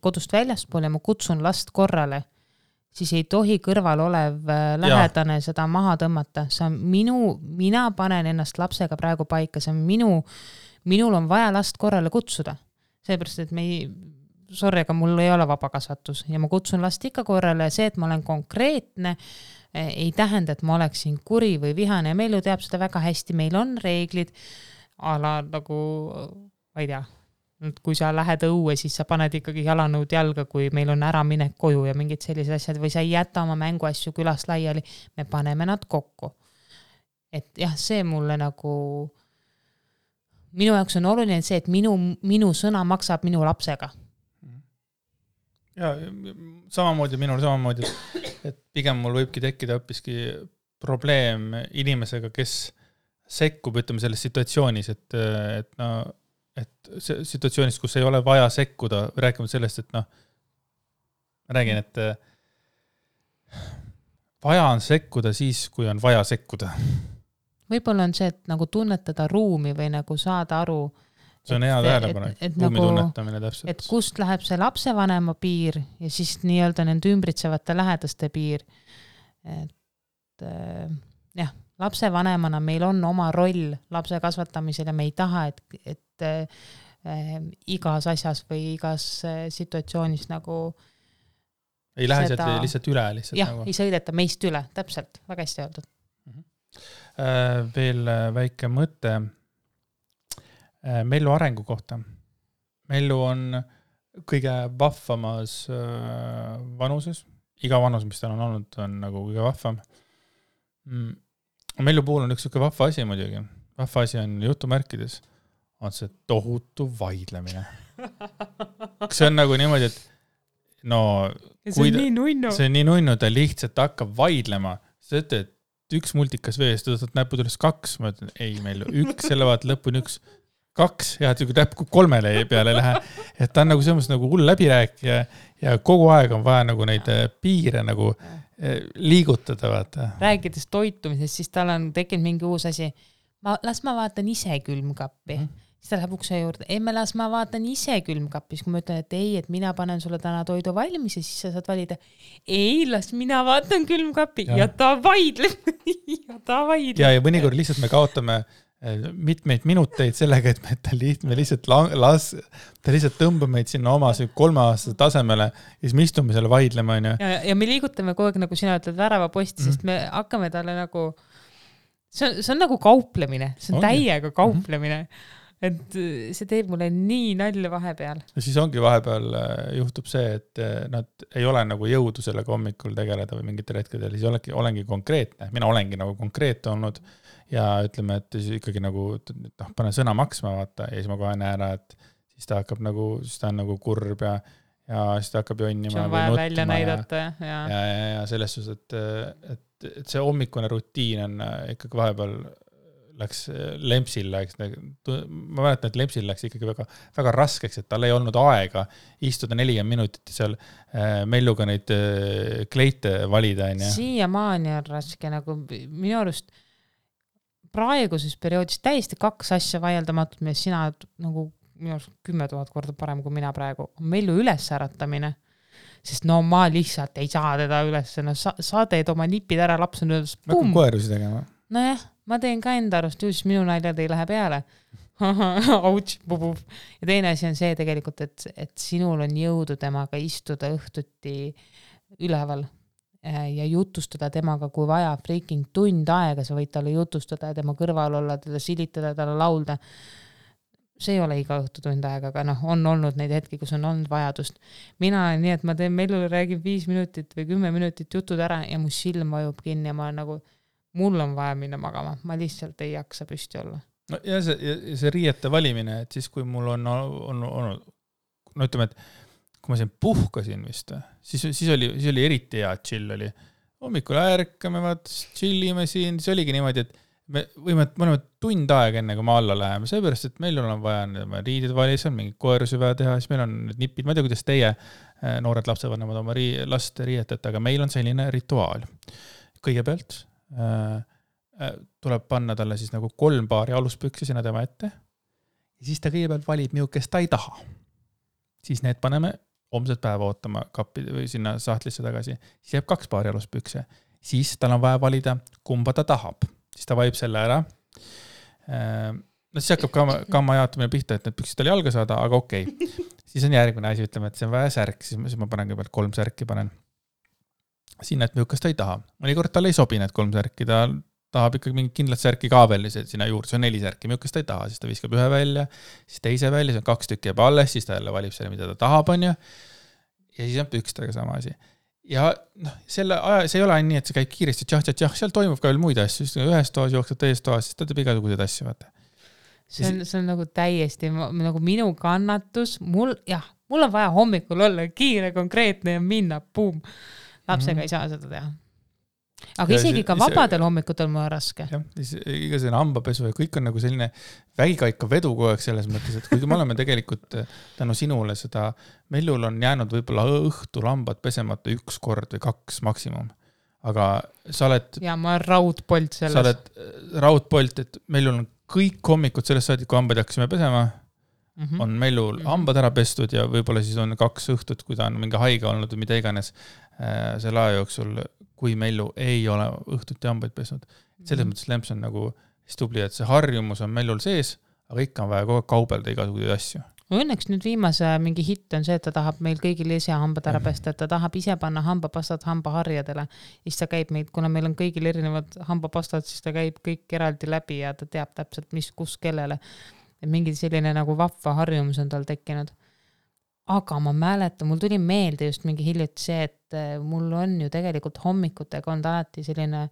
kodust väljaspool ja ma kutsun last korrale, siis ei tohi kõrval olev lähedane seda maha tõmmata. See on mina panen ennast lapsega praegu paika, see on minul on vaja last korrale kutsuda. Seepärast, et sorry, aga mul ei ole vabakasvatus ja ma kutsun last ikka korrale ja see, et ma olen konkreetne, ei tähenda, et ma oleksin kuri või vihane ja Mellu teab seda väga hästi, meil on reeglid, nagu, ma ei tea, kui sa lähed õue, siis sa paned ikkagi jalanõud jalga, kui meil on ära minek koju ja mingid sellised asjad, või sa ei jäta oma mänguasju külast laiali, me paneme nad kokku. Et jah, see mulle nagu, minu jaoks on oluline see, et minu sõna maksab minu lapsega. Ja minul samamoodi, et pigem mul võibki tekkida hoopiski probleem inimesega, kes sekkub, ütleme, selles situatsioonis, et situatsioonis, kus ei ole vaja sekkuda, räägime sellest, et noh, ma räägin, et vaja on sekkuda siis, kui on vaja sekkuda. Võib-olla on see, et nagu tunnetada ruumi või nagu saada aru, see on hea tähelepanek, ruumi nagu, tunnetamine täpselt. Et kust läheb see lapsevanema piir ja siis nii-öelda nende ümbritsevate lähedaste piir. Et jah, lapsevanemana meil on oma roll lapse kasvatamisel ja me ei taha, et igas asjas või igas situatsioonis nagu ei lähe seda... lihtsalt üle. Jah, nagu... ei sõideta meist üle, täpselt, väga hästi öeldud. Veel väike mõte Mellu arengu kohta. Mellu on kõige vahvamas vanuses. Iga vanus, mis tal on olnud, on nagu kõige vahvam. Mellu puhul on üks vahva asi muidugi. Vahva asi on jutumärkides. On see tohutu vaidlemine. See on nagu niimoodi, et no... See on nii nunnu, ta lihtsalt hakkab vaidlema. See ütleb, et üks multikas vees, ta tõstab näpud üles 2. Ma ütlen, ei Mellu, 1, selle vaat lõpuni 1, 2, ja et näpku 3 peale lähe. Et ta on nagu selles nagu hull läbirääkija ja kogu aeg on vaja nagu neid piire nagu liigutada. Vaata. Rääkides toitumisest, siis tal on tekkinud mingi uus asi. Las ma vaatan ise külmkappi. Siis ta läheb ukse juurde. Las ma vaatan ise külmkappis. Kui ma ütlen, et ei, et mina panen sulle täna toidu valmis ja siis sa saad valida. Ei, las mina vaatan külmkappi. Ja ta vaidleb. Ja mõnikord lihtsalt me kaotame mitmeid minuteid sellega, et me lihtsalt tõmbame meid sinna oma 3-aastase tasemele ja siis me istume selle vaidlema. Ja me liigutame kogu aeg, nagu sina ütled, värava posti, sest me hakkame talle nagu... See on nagu kauplemine. See on täiega kauplemine. et see teeb mulle nii nalja vahepeal. Ja siis ongi vahepeal juhtub see, et nad ei ole nagu jõudu sellega hommikul tegeleda või mingitel hetkedel, siis olengi konkreetne. Mina olengi nagu konkreet olnud ja ütleme, et siis ikkagi nagu pane sõna maksma vaata ja siis ma kohe näen ära, et siis ta hakkab nagu, siis ta on nagu kurb ja siis ta hakkab jonnima. See on vaja välja näidata ja selles suhtes, et see hommikune rutiin on ikkagi vahepeal läks Lempsil läks, ma mäletan, et Lempsil läks ikkagi väga, väga raskeks, et tal ei olnud aega istuda 40 minutit seal Melluga neid kleite valida. Siiamaani on raske, nagu minu arust praeguses perioodis täiesti 2 asja vaieldamatult, mis sina nagu minu arust 10 000 korda parem kui mina praegu, on Mellu ülesäratamine. Sest no ma lihtsalt ei saa teda üles, no sa teed oma nipid ära, laps on öeldes pum. Ma hakkan koerusi tegema. Nojah, ma teen ka enda arust, just minu naljad ei lähe peale. Auts, bubub. Ja teine asi on see tegelikult, et sinul on jõudu temaga istuda õhtuti üleval ja jutustada temaga, kui vaja freaking tund aega, sa võid talle jutustada ja tema kõrval olla, talle silitada, talle laulda. See ei ole iga õhtu tund aega, aga on olnud neid hetki, kus on olnud vajadust. Mina olen nii, et ma teen Mellule, räägin 5 minutit või 10 minutit jutud ära ja mu silm vajub kinni ja ma olen nagu, mul on vaja minna magama. Ma lihtsalt ei jaksa püsti olla. No ja see riiete valimine, et siis kui mul on olnud, no ütleme, et kui ma siin puhkasin vist, siis oli eriti hea chill oli. Hommikul ärkame, chillime siin, siis oligi niimoodi, et me oleme tund aega enne, kui me alla läheme, seepärast, et meil on vaja riidid valis, on mingi koerusi vaja teha, siis meil on need nipid, ma ei tea, kuidas teie noored lapsevanemad oma last riietate, aga meil on selline rituaal. Kõigepealt tuleb panna talle siis nagu 3 paari aluspüksi sinna tema ette ja siis ta kõigepealt valib milles ta ei taha. Siis need paneme homset päeva ootama kappi või sinna sahtlisse tagasi. Siis jääb 2 paari aluspükse. Siis tal on vaja valida, kumba ta tahab. Siis ta valib selle ära. No siis hakkab kamma jaotamine pihta, et need püksid tal jalga saada, aga okei. Siis on järgmine asi, ütleme, et see on vaja särk, siis ma panen kõigepealt 3 särki panen. Sinna, et milles ta ei taha. Mõnikord tal ei sobi need 3 särki, ta tahab ikkagi mingit kindlat särki ka veel sinna juurde, see on 4 särki, milles ta ei taha, siis ta viskab 1 välja, siis teise välja, see on 2 tükki jääb alles, siis ta jälle valib selle, mida ta tahab, on ju. Ja siis on pükstega sama asi. Ja selle aja, see ei ole nii, et see käib kiiresti, tšah, seal toimub ka veel muid asju, siis ühes toas jookseb teises toas, siis ta teeb igasuguseid asju, vaata. See on nagu täiesti nagu minu kannatus, mul on vaja hommikul olla kiire, konkreetne ja minna, puum. Lapsega ei saa seda teha. Aga isegi ka vabadel hommikutel mul on raske. Jah, iga selline hambapesu ja kõik on nagu selline vägikaika vedu kogu aeg selles mõttes, et kuigi me oleme tegelikult tänu sinule seda, Mellul on jäänud võib-olla õhtul hambad pesemata 1 kord või 2 maksimum. Aga sa oled... Ja ma olen raudpolt selles. Sa oled raudpolt, et Mellul on kõik hommikud sellest saadik, kui hambad hakkasime pesema, on Mellul hambad ära pestud ja võib-olla siis on 2 õhtut, kui ta on mingi haige olnud või mida iganes selle aja jooksul, kui Mellu ei ole õhtuti hambaid pesnud. Selles mõttes Lemps on nagu stubli, et see harjumus on Mellul sees, aga ikka on vaja kogu aeg kaubelda igasuguseid asju. Õnneks nüüd viimase mingi hitt on see, et ta tahab meil kõigil ise hambad ära pesta, et ta tahab ise panna hambapastad hambaharjadele. Siis ta käib meid, kuna meil on kõigil erinevad hambapastad, siis ta käib kõik eraldi läbi ja ta teab täpselt, mis kus kellele. Et mingi selline nagu vapva harjumus on tal tekkinud. Aga ma mäletan, mul tuli meelde just mingi hiljuti see, et mul on ju tegelikult hommikutega on alati selline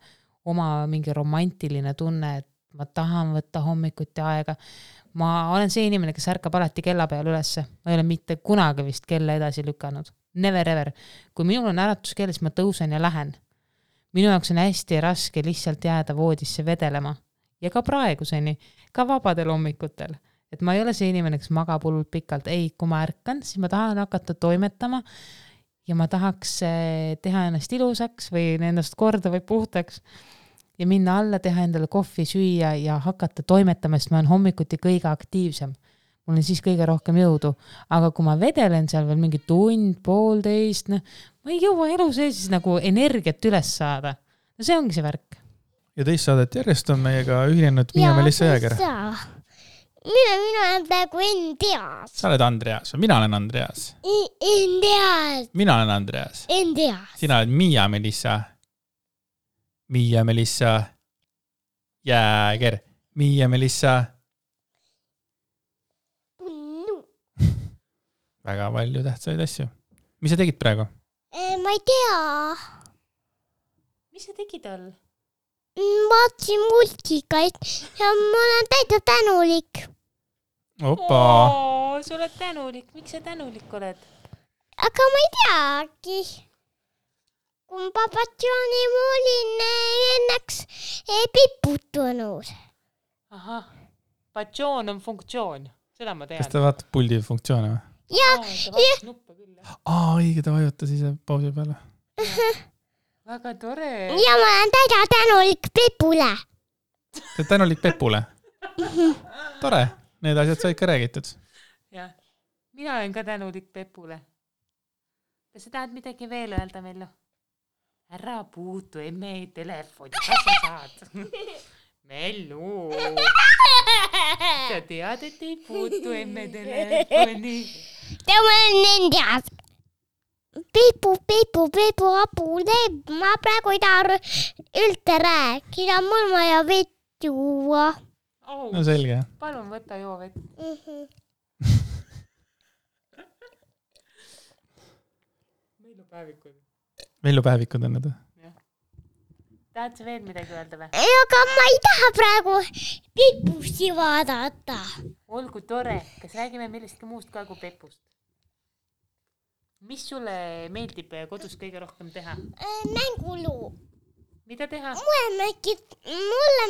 oma mingi romantiline tunne, et ma tahan võtta hommikuti aega. Ma olen see inimene, kes ärkab alati kella peal ülesse. Ma ei ole mitte kunagi vist kella edasi lükanud. Never ever. Kui minul on äratuskell, siis ma tõusen ja lähen. Minu jaoks on hästi raske lihtsalt jääda voodisse vedelema. Ja ka praeguseni, ka vabadel hommikutel. Et ma ei ole see inimene, kes magab hullult pikalt. Ei, kui ma ärkan, siis ma tahan hakata toimetama ja ma tahaks teha ennast ilusaks või ennast korda või puhtaks ja minna alla, teha endale kohvi, süüa ja hakata toimetama, sest ma olen hommikuti kõige aktiivsem. Mul on siis kõige rohkem jõudu. Aga kui ma vedelen seal veel mingi tund, 1,5, ma ei jõua elu sees siis nagu energiat üles saada. No see ongi see värk. Ja teist saadet järjest on meiega ühinenud Miia-Melissa Jääger. Mina olen praegu Andreas. Sa oled Andreas või mina olen Andreas? Andreas. Mina olen Andreas. Andreas. Sina oled Miia-Melissa. Miia-Melissa Jääger. Miia-Melissa väga palju tähtsaid asju. Mis sa tegid praegu? Ma ei tea. Mis sa tegid all? Vaatasin multikaid ja ma olen täitsa tänulik. Opa! Sa oled tänulik. Miks sa tänulik oled? Aga ma ei teagi. Kun papatsiooni ma olin ennaks piputunut. Ahah, patsioon on funktsioon. Seda ma tean. Kas ta vaatab puldi funktsioone või? Ja, ta vaatab nuppe küll. Õige, ta vajutas ise pausi peale. Väga tore. ja ma olen täitsa tänulik Pepule. Ta on tänulik Pepule. Tore, need asjad said ka räägitud. Jah, mina olen ka tänulik Pepule. Kas sa tahad midagi veel öelda, Mellu? Ära puutu emme telefoni, kas sa saad? Mellu, sa tead, et ei puutu emme telefoni. Tämä on nendes. Pepu, apu, ma praegu ei taha üldse rääkida, mul vaja vett juua. No selge. Palun võta joo vett. Mellu päevikud on need. Tahad sa veel midagi öelda või? Aga ma ei taha praegu Pepusti vaadata. Olgu tore, kas räägime millestki muust ka kui Pepust? Mis sulle meeldib kodus kõige rohkem teha? Mänguluu. Mida teha? Mulle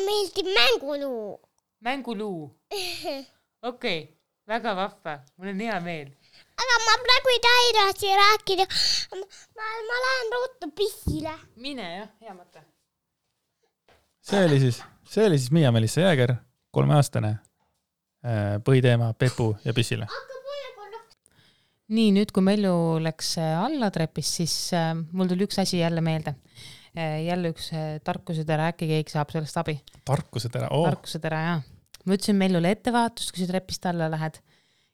meeldib mänguluu. Mänguluu. Okei, väga vahva, mul on hea meel. Aga ma praegu ei taha edasi rääkida. Ma lähen ruttu pissile. Mine jah, hea mõte. See oli siis Miia-Melissa Jääger, 3-aastane põhiteema Pepu ja pissile. Nii, nüüd kui Mellu läks alla trepist, siis mul tuli üks asi jälle meelde. Jälle üks tarkusetera, äkki keegi saab sellest abi. Tarkusetera, Tarkusetera, jah. Ma ütlesin Mellule ettevaatust, kui sa trepist alla lähed.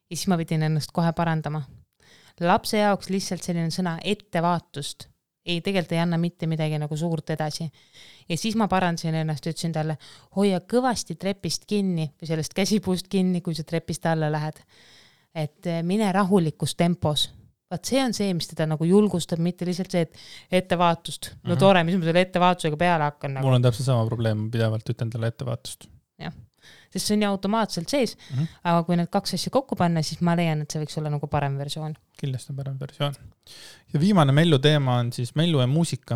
Ja siis ma pidin ennast kohe parandama. Lapse jaoks lihtsalt selline sõna ettevaatust. Tegelikult ei anna mitte midagi nagu suurt edasi. Ja siis ma parandasin ennast, ütlesin talle, hoia kõvasti trepist kinni või sellest käsipuust kinni, kui sa trepist alla lähed. Et mine rahulikus tempos. Vaat see on see, mis teda nagu julgustab, mitte lihtsalt see, et ettevaatust. No tore, mis ma selle ettevaatusega peale hakkan. Nagu. Mul on täpselt sama probleem, pidevalt ütlen talle ettevaatust. Jah, sest see on ju automaatselt sees, aga kui need kaks asja kokku panna, siis ma leian, et see võiks olla nagu parem versioon. Kindlasti on parem versioon. Ja viimane Mellu teema on siis Mellu ja muusika.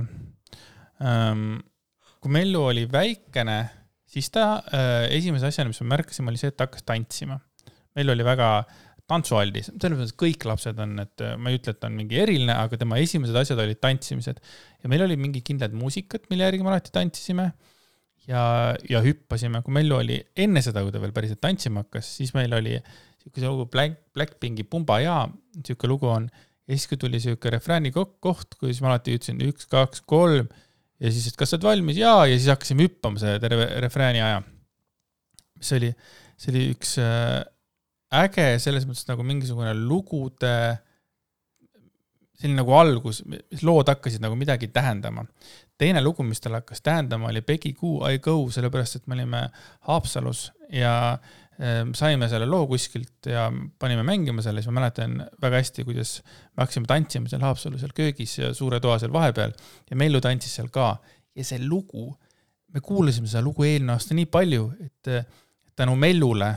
Kui Mellu oli väikene, siis ta esimese asjana, mis ma märkasin, oli see, et ta hakkas tantsima. Mellu oli väga tantsualdis. Selles mõttes kõik lapsed on, et ma ei ütle, et ta on mingi eriline, aga tema esimesed asjad olid tantsimised. Ja meil oli mingi kindlad muusikat, mille järgi me alati tantsisime ja hüppasime. Kui Mellu oli enne seda, kui ta veel päriselt tantsima hakkas, siis meil oli siuke lugu Blackpinki Pumba ja siuke lugu on. Ja siis kui tuli siuke refrääni koht, kui siis ma alati ütlesin 1, 2, 3 ja siis, et kas sa oled valmis? Ja siis hakkasime hüppama see terve refrääni aja. See oli üks äge selles mõttes nagu mingisugune lugude selline nagu algus, mis lood hakkasid nagu midagi tähendama. Teine lugu, mis tal hakkas tähendama, oli Peggy Goo, I Go, sellepärast, et me olime Haapsalus ja saime selle loo kuskilt ja panime mängima selle, siis ma mäletan väga hästi, kuidas me hakkasime tantsima seal Haapsalus, seal köögis ja suure toa seal vahepeal ja Mellu tantsis seal ka. Ja see lugu, me kuulasime seda lugu eelmine aasta nii palju, et tänu Mellule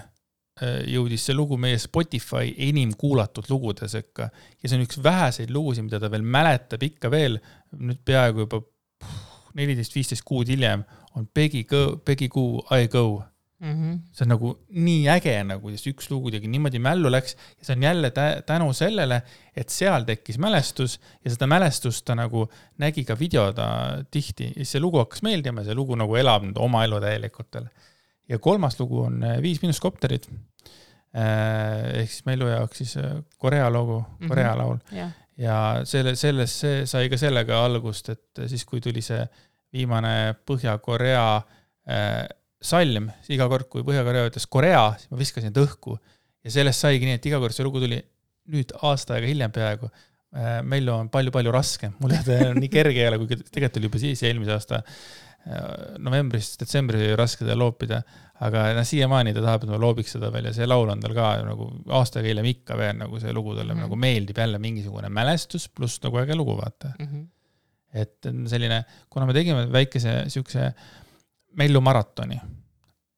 jõudis see lugu meie Spotify enim kuulatud lugude sekka. Ja see on üks väheseid lugusid, mida ta veel mäletab ikka veel, nüüd peaaegu juba 14-15 kuud hiljem, on Peggy Goo, I Go. See on nagu nii äge, nagu üks lugu tegi niimoodi mällu läks ja see on jälle tänu sellele, et seal tekkis mälestus ja seda mälestust ta nagu nägi ka videoda tihti ja see lugu hakkas meeldima ja see lugu nagu elab nüüd oma elu täielikult. Ja kolmas lugu on 5 Minuskopterid. Ehk siis Mellu jaoks siis Korea logo, Korea laul. Ja selles sai ka sellega algust, et siis kui tuli see viimane Põhja-Korea salm, iga kord kui Põhja-Korea ütles Korea, siis ma viskasin õhku ja sellest saigi nii, et iga kord see lugu tuli nüüd aasta aega hiljem peaaegu. Mellu on palju raskem, mul on nii kerge jälle, kui tegelikult oli juba siis eelmise aasta novembrist detsembri oli raske teda loopida, aga siiamaani ta tahab, et ma loobiks seda veel ja see laul on tal ka nagu aastaga hiljem ikka veel nagu see lugu talle nagu meeldib jälle mingisugune mälestus pluss nagu äge lugu vaata. Et selline, kuna me tegime väikese siukse Mellu maratoni,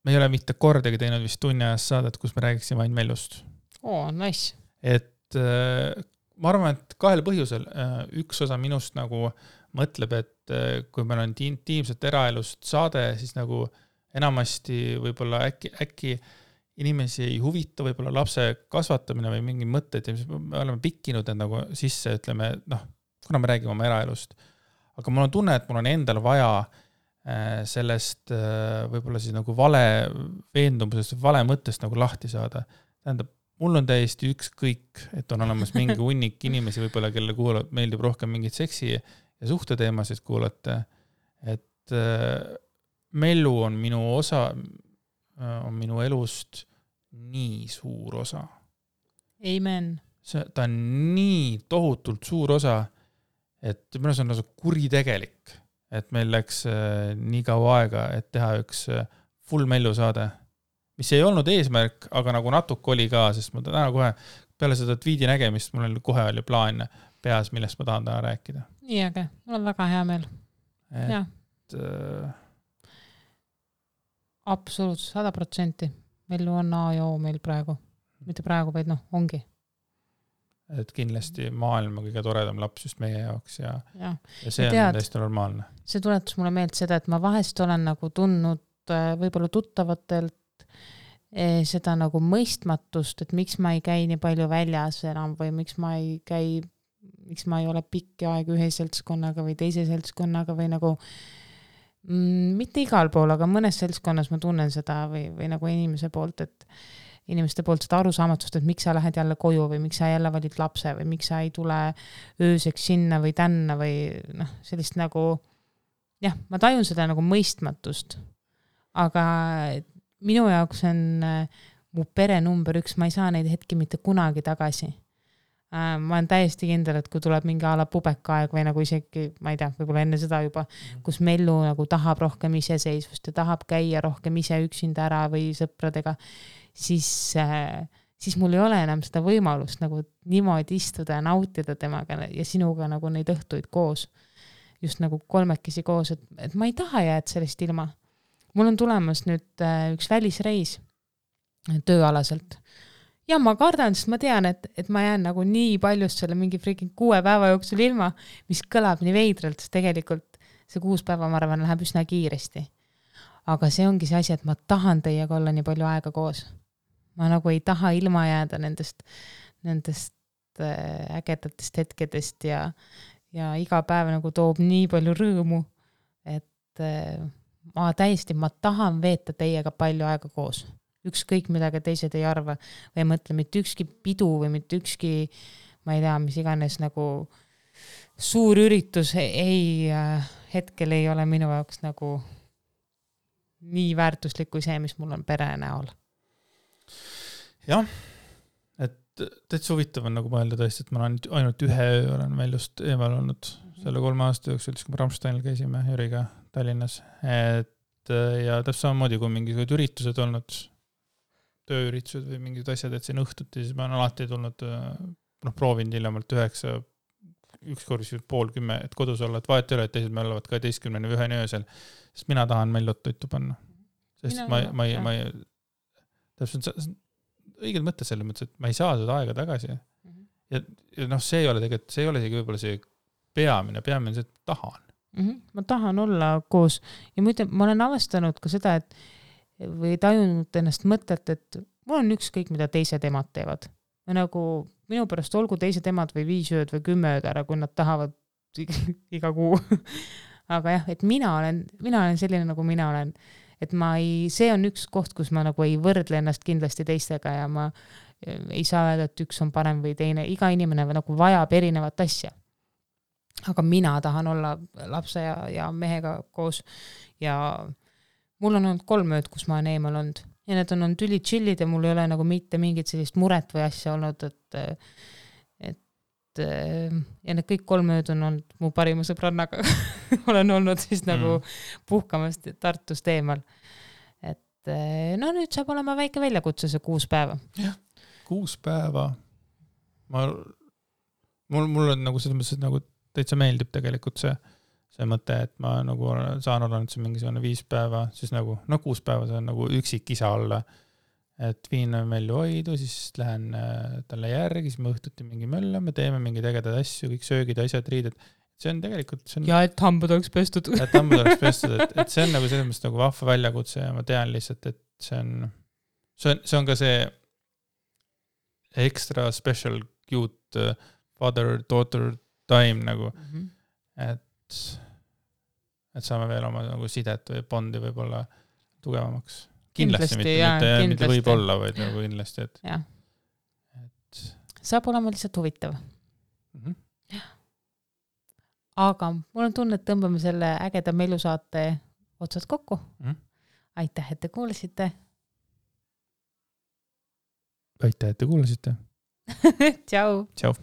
me ei ole mitte kordagi teinud vist tunni ajast saadet, kus me räägiksime ainult Mellust. Nice. Et ma arvan, et kahel põhjusel. Üks osa minust nagu mõtleb, et kui meil on intiimset eraelust saade, siis nagu enamasti võib-olla äkki inimesi ei huvita võib-olla lapse kasvatamine või mingi mõtted ja me oleme pikkinud need nagu sisse, ütleme, kuna me räägime oma eraelust. Aga mul on tunne, et mul on endal vaja sellest võib-olla siis nagu vale veendumusest, vale mõttest nagu lahti saada. Tähendab, mul on täiesti ükskõik, et on olemas mingi hunnik inimesi võib-olla, kelle meeldib rohkem mingit seksi ja suhteteemasid kuulata. Et Mellu on minu osa, on minu elust nii suur osa. Amen. Ta on nii tohutult suur osa, et minu on nagu kuritegelik, et meil läks nii kaua aega, et teha üks full Mellu saade, mis ei olnud eesmärk, aga nagu natuke oli ka, sest ma täna kohe peale seda tweedi nägemist, mul oli kohe oli plaan peas, millest ma tahan täna rääkida. Nii äge, mul on väga hea meel. Et, absoluutselt 100%. Mellu on A ja O meil praegu. Mitte praegu, vaid ongi. Et kindlasti maailma kõige toredam laps just meie jaoks ja see tead, on täiesti normaalne. See tuletus mulle meelt seda, et ma vahest olen nagu tundnud võib-olla tuttavatelt seda nagu mõistmatust, et miks ma ei käi nii palju väljas enam või miks ma ei ole pikki aeg ühe seltskonnaga või teise seltskonnaga või nagu mitte igal pool, aga mõnes seltskonnas ma tunnen seda või nagu inimeste poolt seda arusaamatust, et miks sa lähed jälle koju või miks sa jälle valid lapse või miks sa ei tule ööseks sinna või tänna või sellist nagu ma tajun seda nagu mõistmatust. Aga minu jaoks on mu pere number 1, ma ei saa neid hetki mitte kunagi tagasi. Ma olen täiesti kindel, et kui tuleb mingi ala pubekaaeg või nagu isegi, ma ei tea, võib-olla enne seda juba, kus Mellu nagu tahab rohkem iseseisvust ja tahab käia rohkem ise üksinda ära või sõpradega, siis mul ei ole enam seda võimalust nagu niimoodi istuda ja nautida temaga ja sinuga nagu neid õhtuid koos, just nagu kolmekesi koos, et ma ei taha jääd sellest ilma. Mul on tulemas nüüd üks välisreis tööalaselt. Ja ma kardan, sest ma tean, et ma jään nagu nii paljust selle mingi freaking 6 päeva jooksul ilma, mis kõlab nii veidralt, sest tegelikult see 6 päeva, ma arvan, läheb üsna kiiresti. Aga see ongi see asi, et ma tahan teiega olla nii palju aega koos. Ma nagu ei taha ilma jääda nendest ägedatest hetkedest ja iga päev nagu toob nii palju rõõmu, et ma tahan veeta teiega palju aega koos. Ükskõik midagi teised ei arva või ei mõtle mitte ükski pidu või mitte ükski, ma ei tea, mis iganes nagu suur üritus hetkel ei ole minu jaoks nagu nii väärtuslik kui see, mis mul on pere näol. Jah, et täitsa huvitav on nagu mõelda tõesti, et ma olen ainult ühe öö olen Mellust eemal olnud selle 3 aasta jooksul, kui me Ramsteinil käisime Jüriga Tallinnas. Ja täpselt samamoodi, kui mingisugused üritused olnud, tööüritused või mingid asjad, et siin õhtuti, siis ma olen alati tulnud, proovinud hiljemalt 9, ükskord 9:30, et kodus olla, et vahet ei ole, et teised me olevad 12 või 1 öösel, sest mina tahan Mellot toitu panna. Sest ma ei täpselt õiged mõtted selles mõttes, et ma ei saa seda aega tagasi. Ja see ei ole tegelikult, see ei ole isegi võib-olla see peamine see, et tahan. Ma tahan olla koos ja ma olen avastanud ka seda, et või tajunud ennast mõtet, et mul on ükskõik, mida teised emad teevad. Ja nagu minu pärast olgu teised emad või 5 ööd või 10 ööd ära, kui nad tahavad iga kuu. Aga jah, et mina olen selline, nagu mina olen. Et see on üks koht, kus ma nagu ei võrdle ennast kindlasti teistega ja ma ei saa öelda, et üks on parem või teine. Iga inimene nagu vajab erinevat asja. Aga mina tahan olla lapse ja mehega koos ja mul on olnud 3 ööd, kus ma olen eemal olnud. Ja need on olnud tüli chillid ja mul ei ole nagu mitte mingit sellist muret või asja olnud, et ja need kõik 3 ööd on olnud mu parima sõbrannaga. olen olnud siis nagu puhkamas Tartust eemal. Et no nüüd saab olema väike väljakutse see 6 päeva. Jah, 6 päeva. Mul on nagu selles mõttes, et nagu täitsa meeldib tegelikult see mõte, et ma nagu saan olla nüüd see mingisugune 5 päeva, siis nagu, 6 päeva see on nagu üksik isa olla, et viin Mellu hoidu, siis lähen talle järgi, siis me õhtuti mingi mölla, me teeme mingi tegedad asju, kõik söögid, asjad, riided. See on tegelikult... Ja et hambad oleks pestud. Et hambad oleks pestud, et see on nagu selles mõttes nagu vahva väljakutse ja ma tean lihtsalt, et see on ka see extra special cute father-daughter time nagu, et saame veel oma nagu sidet või bondi võib-olla tugevamaks. Kindlasti mitte võib-olla, vaid nagu kindlasti, et saab olema lihtsalt huvitav. Aga mul on tunne, et tõmbame selle ägeda Mellu saate otsad kokku. Aitäh, et te kuulasite. Aitäh, et te kuulasite. Tšau. Tšau.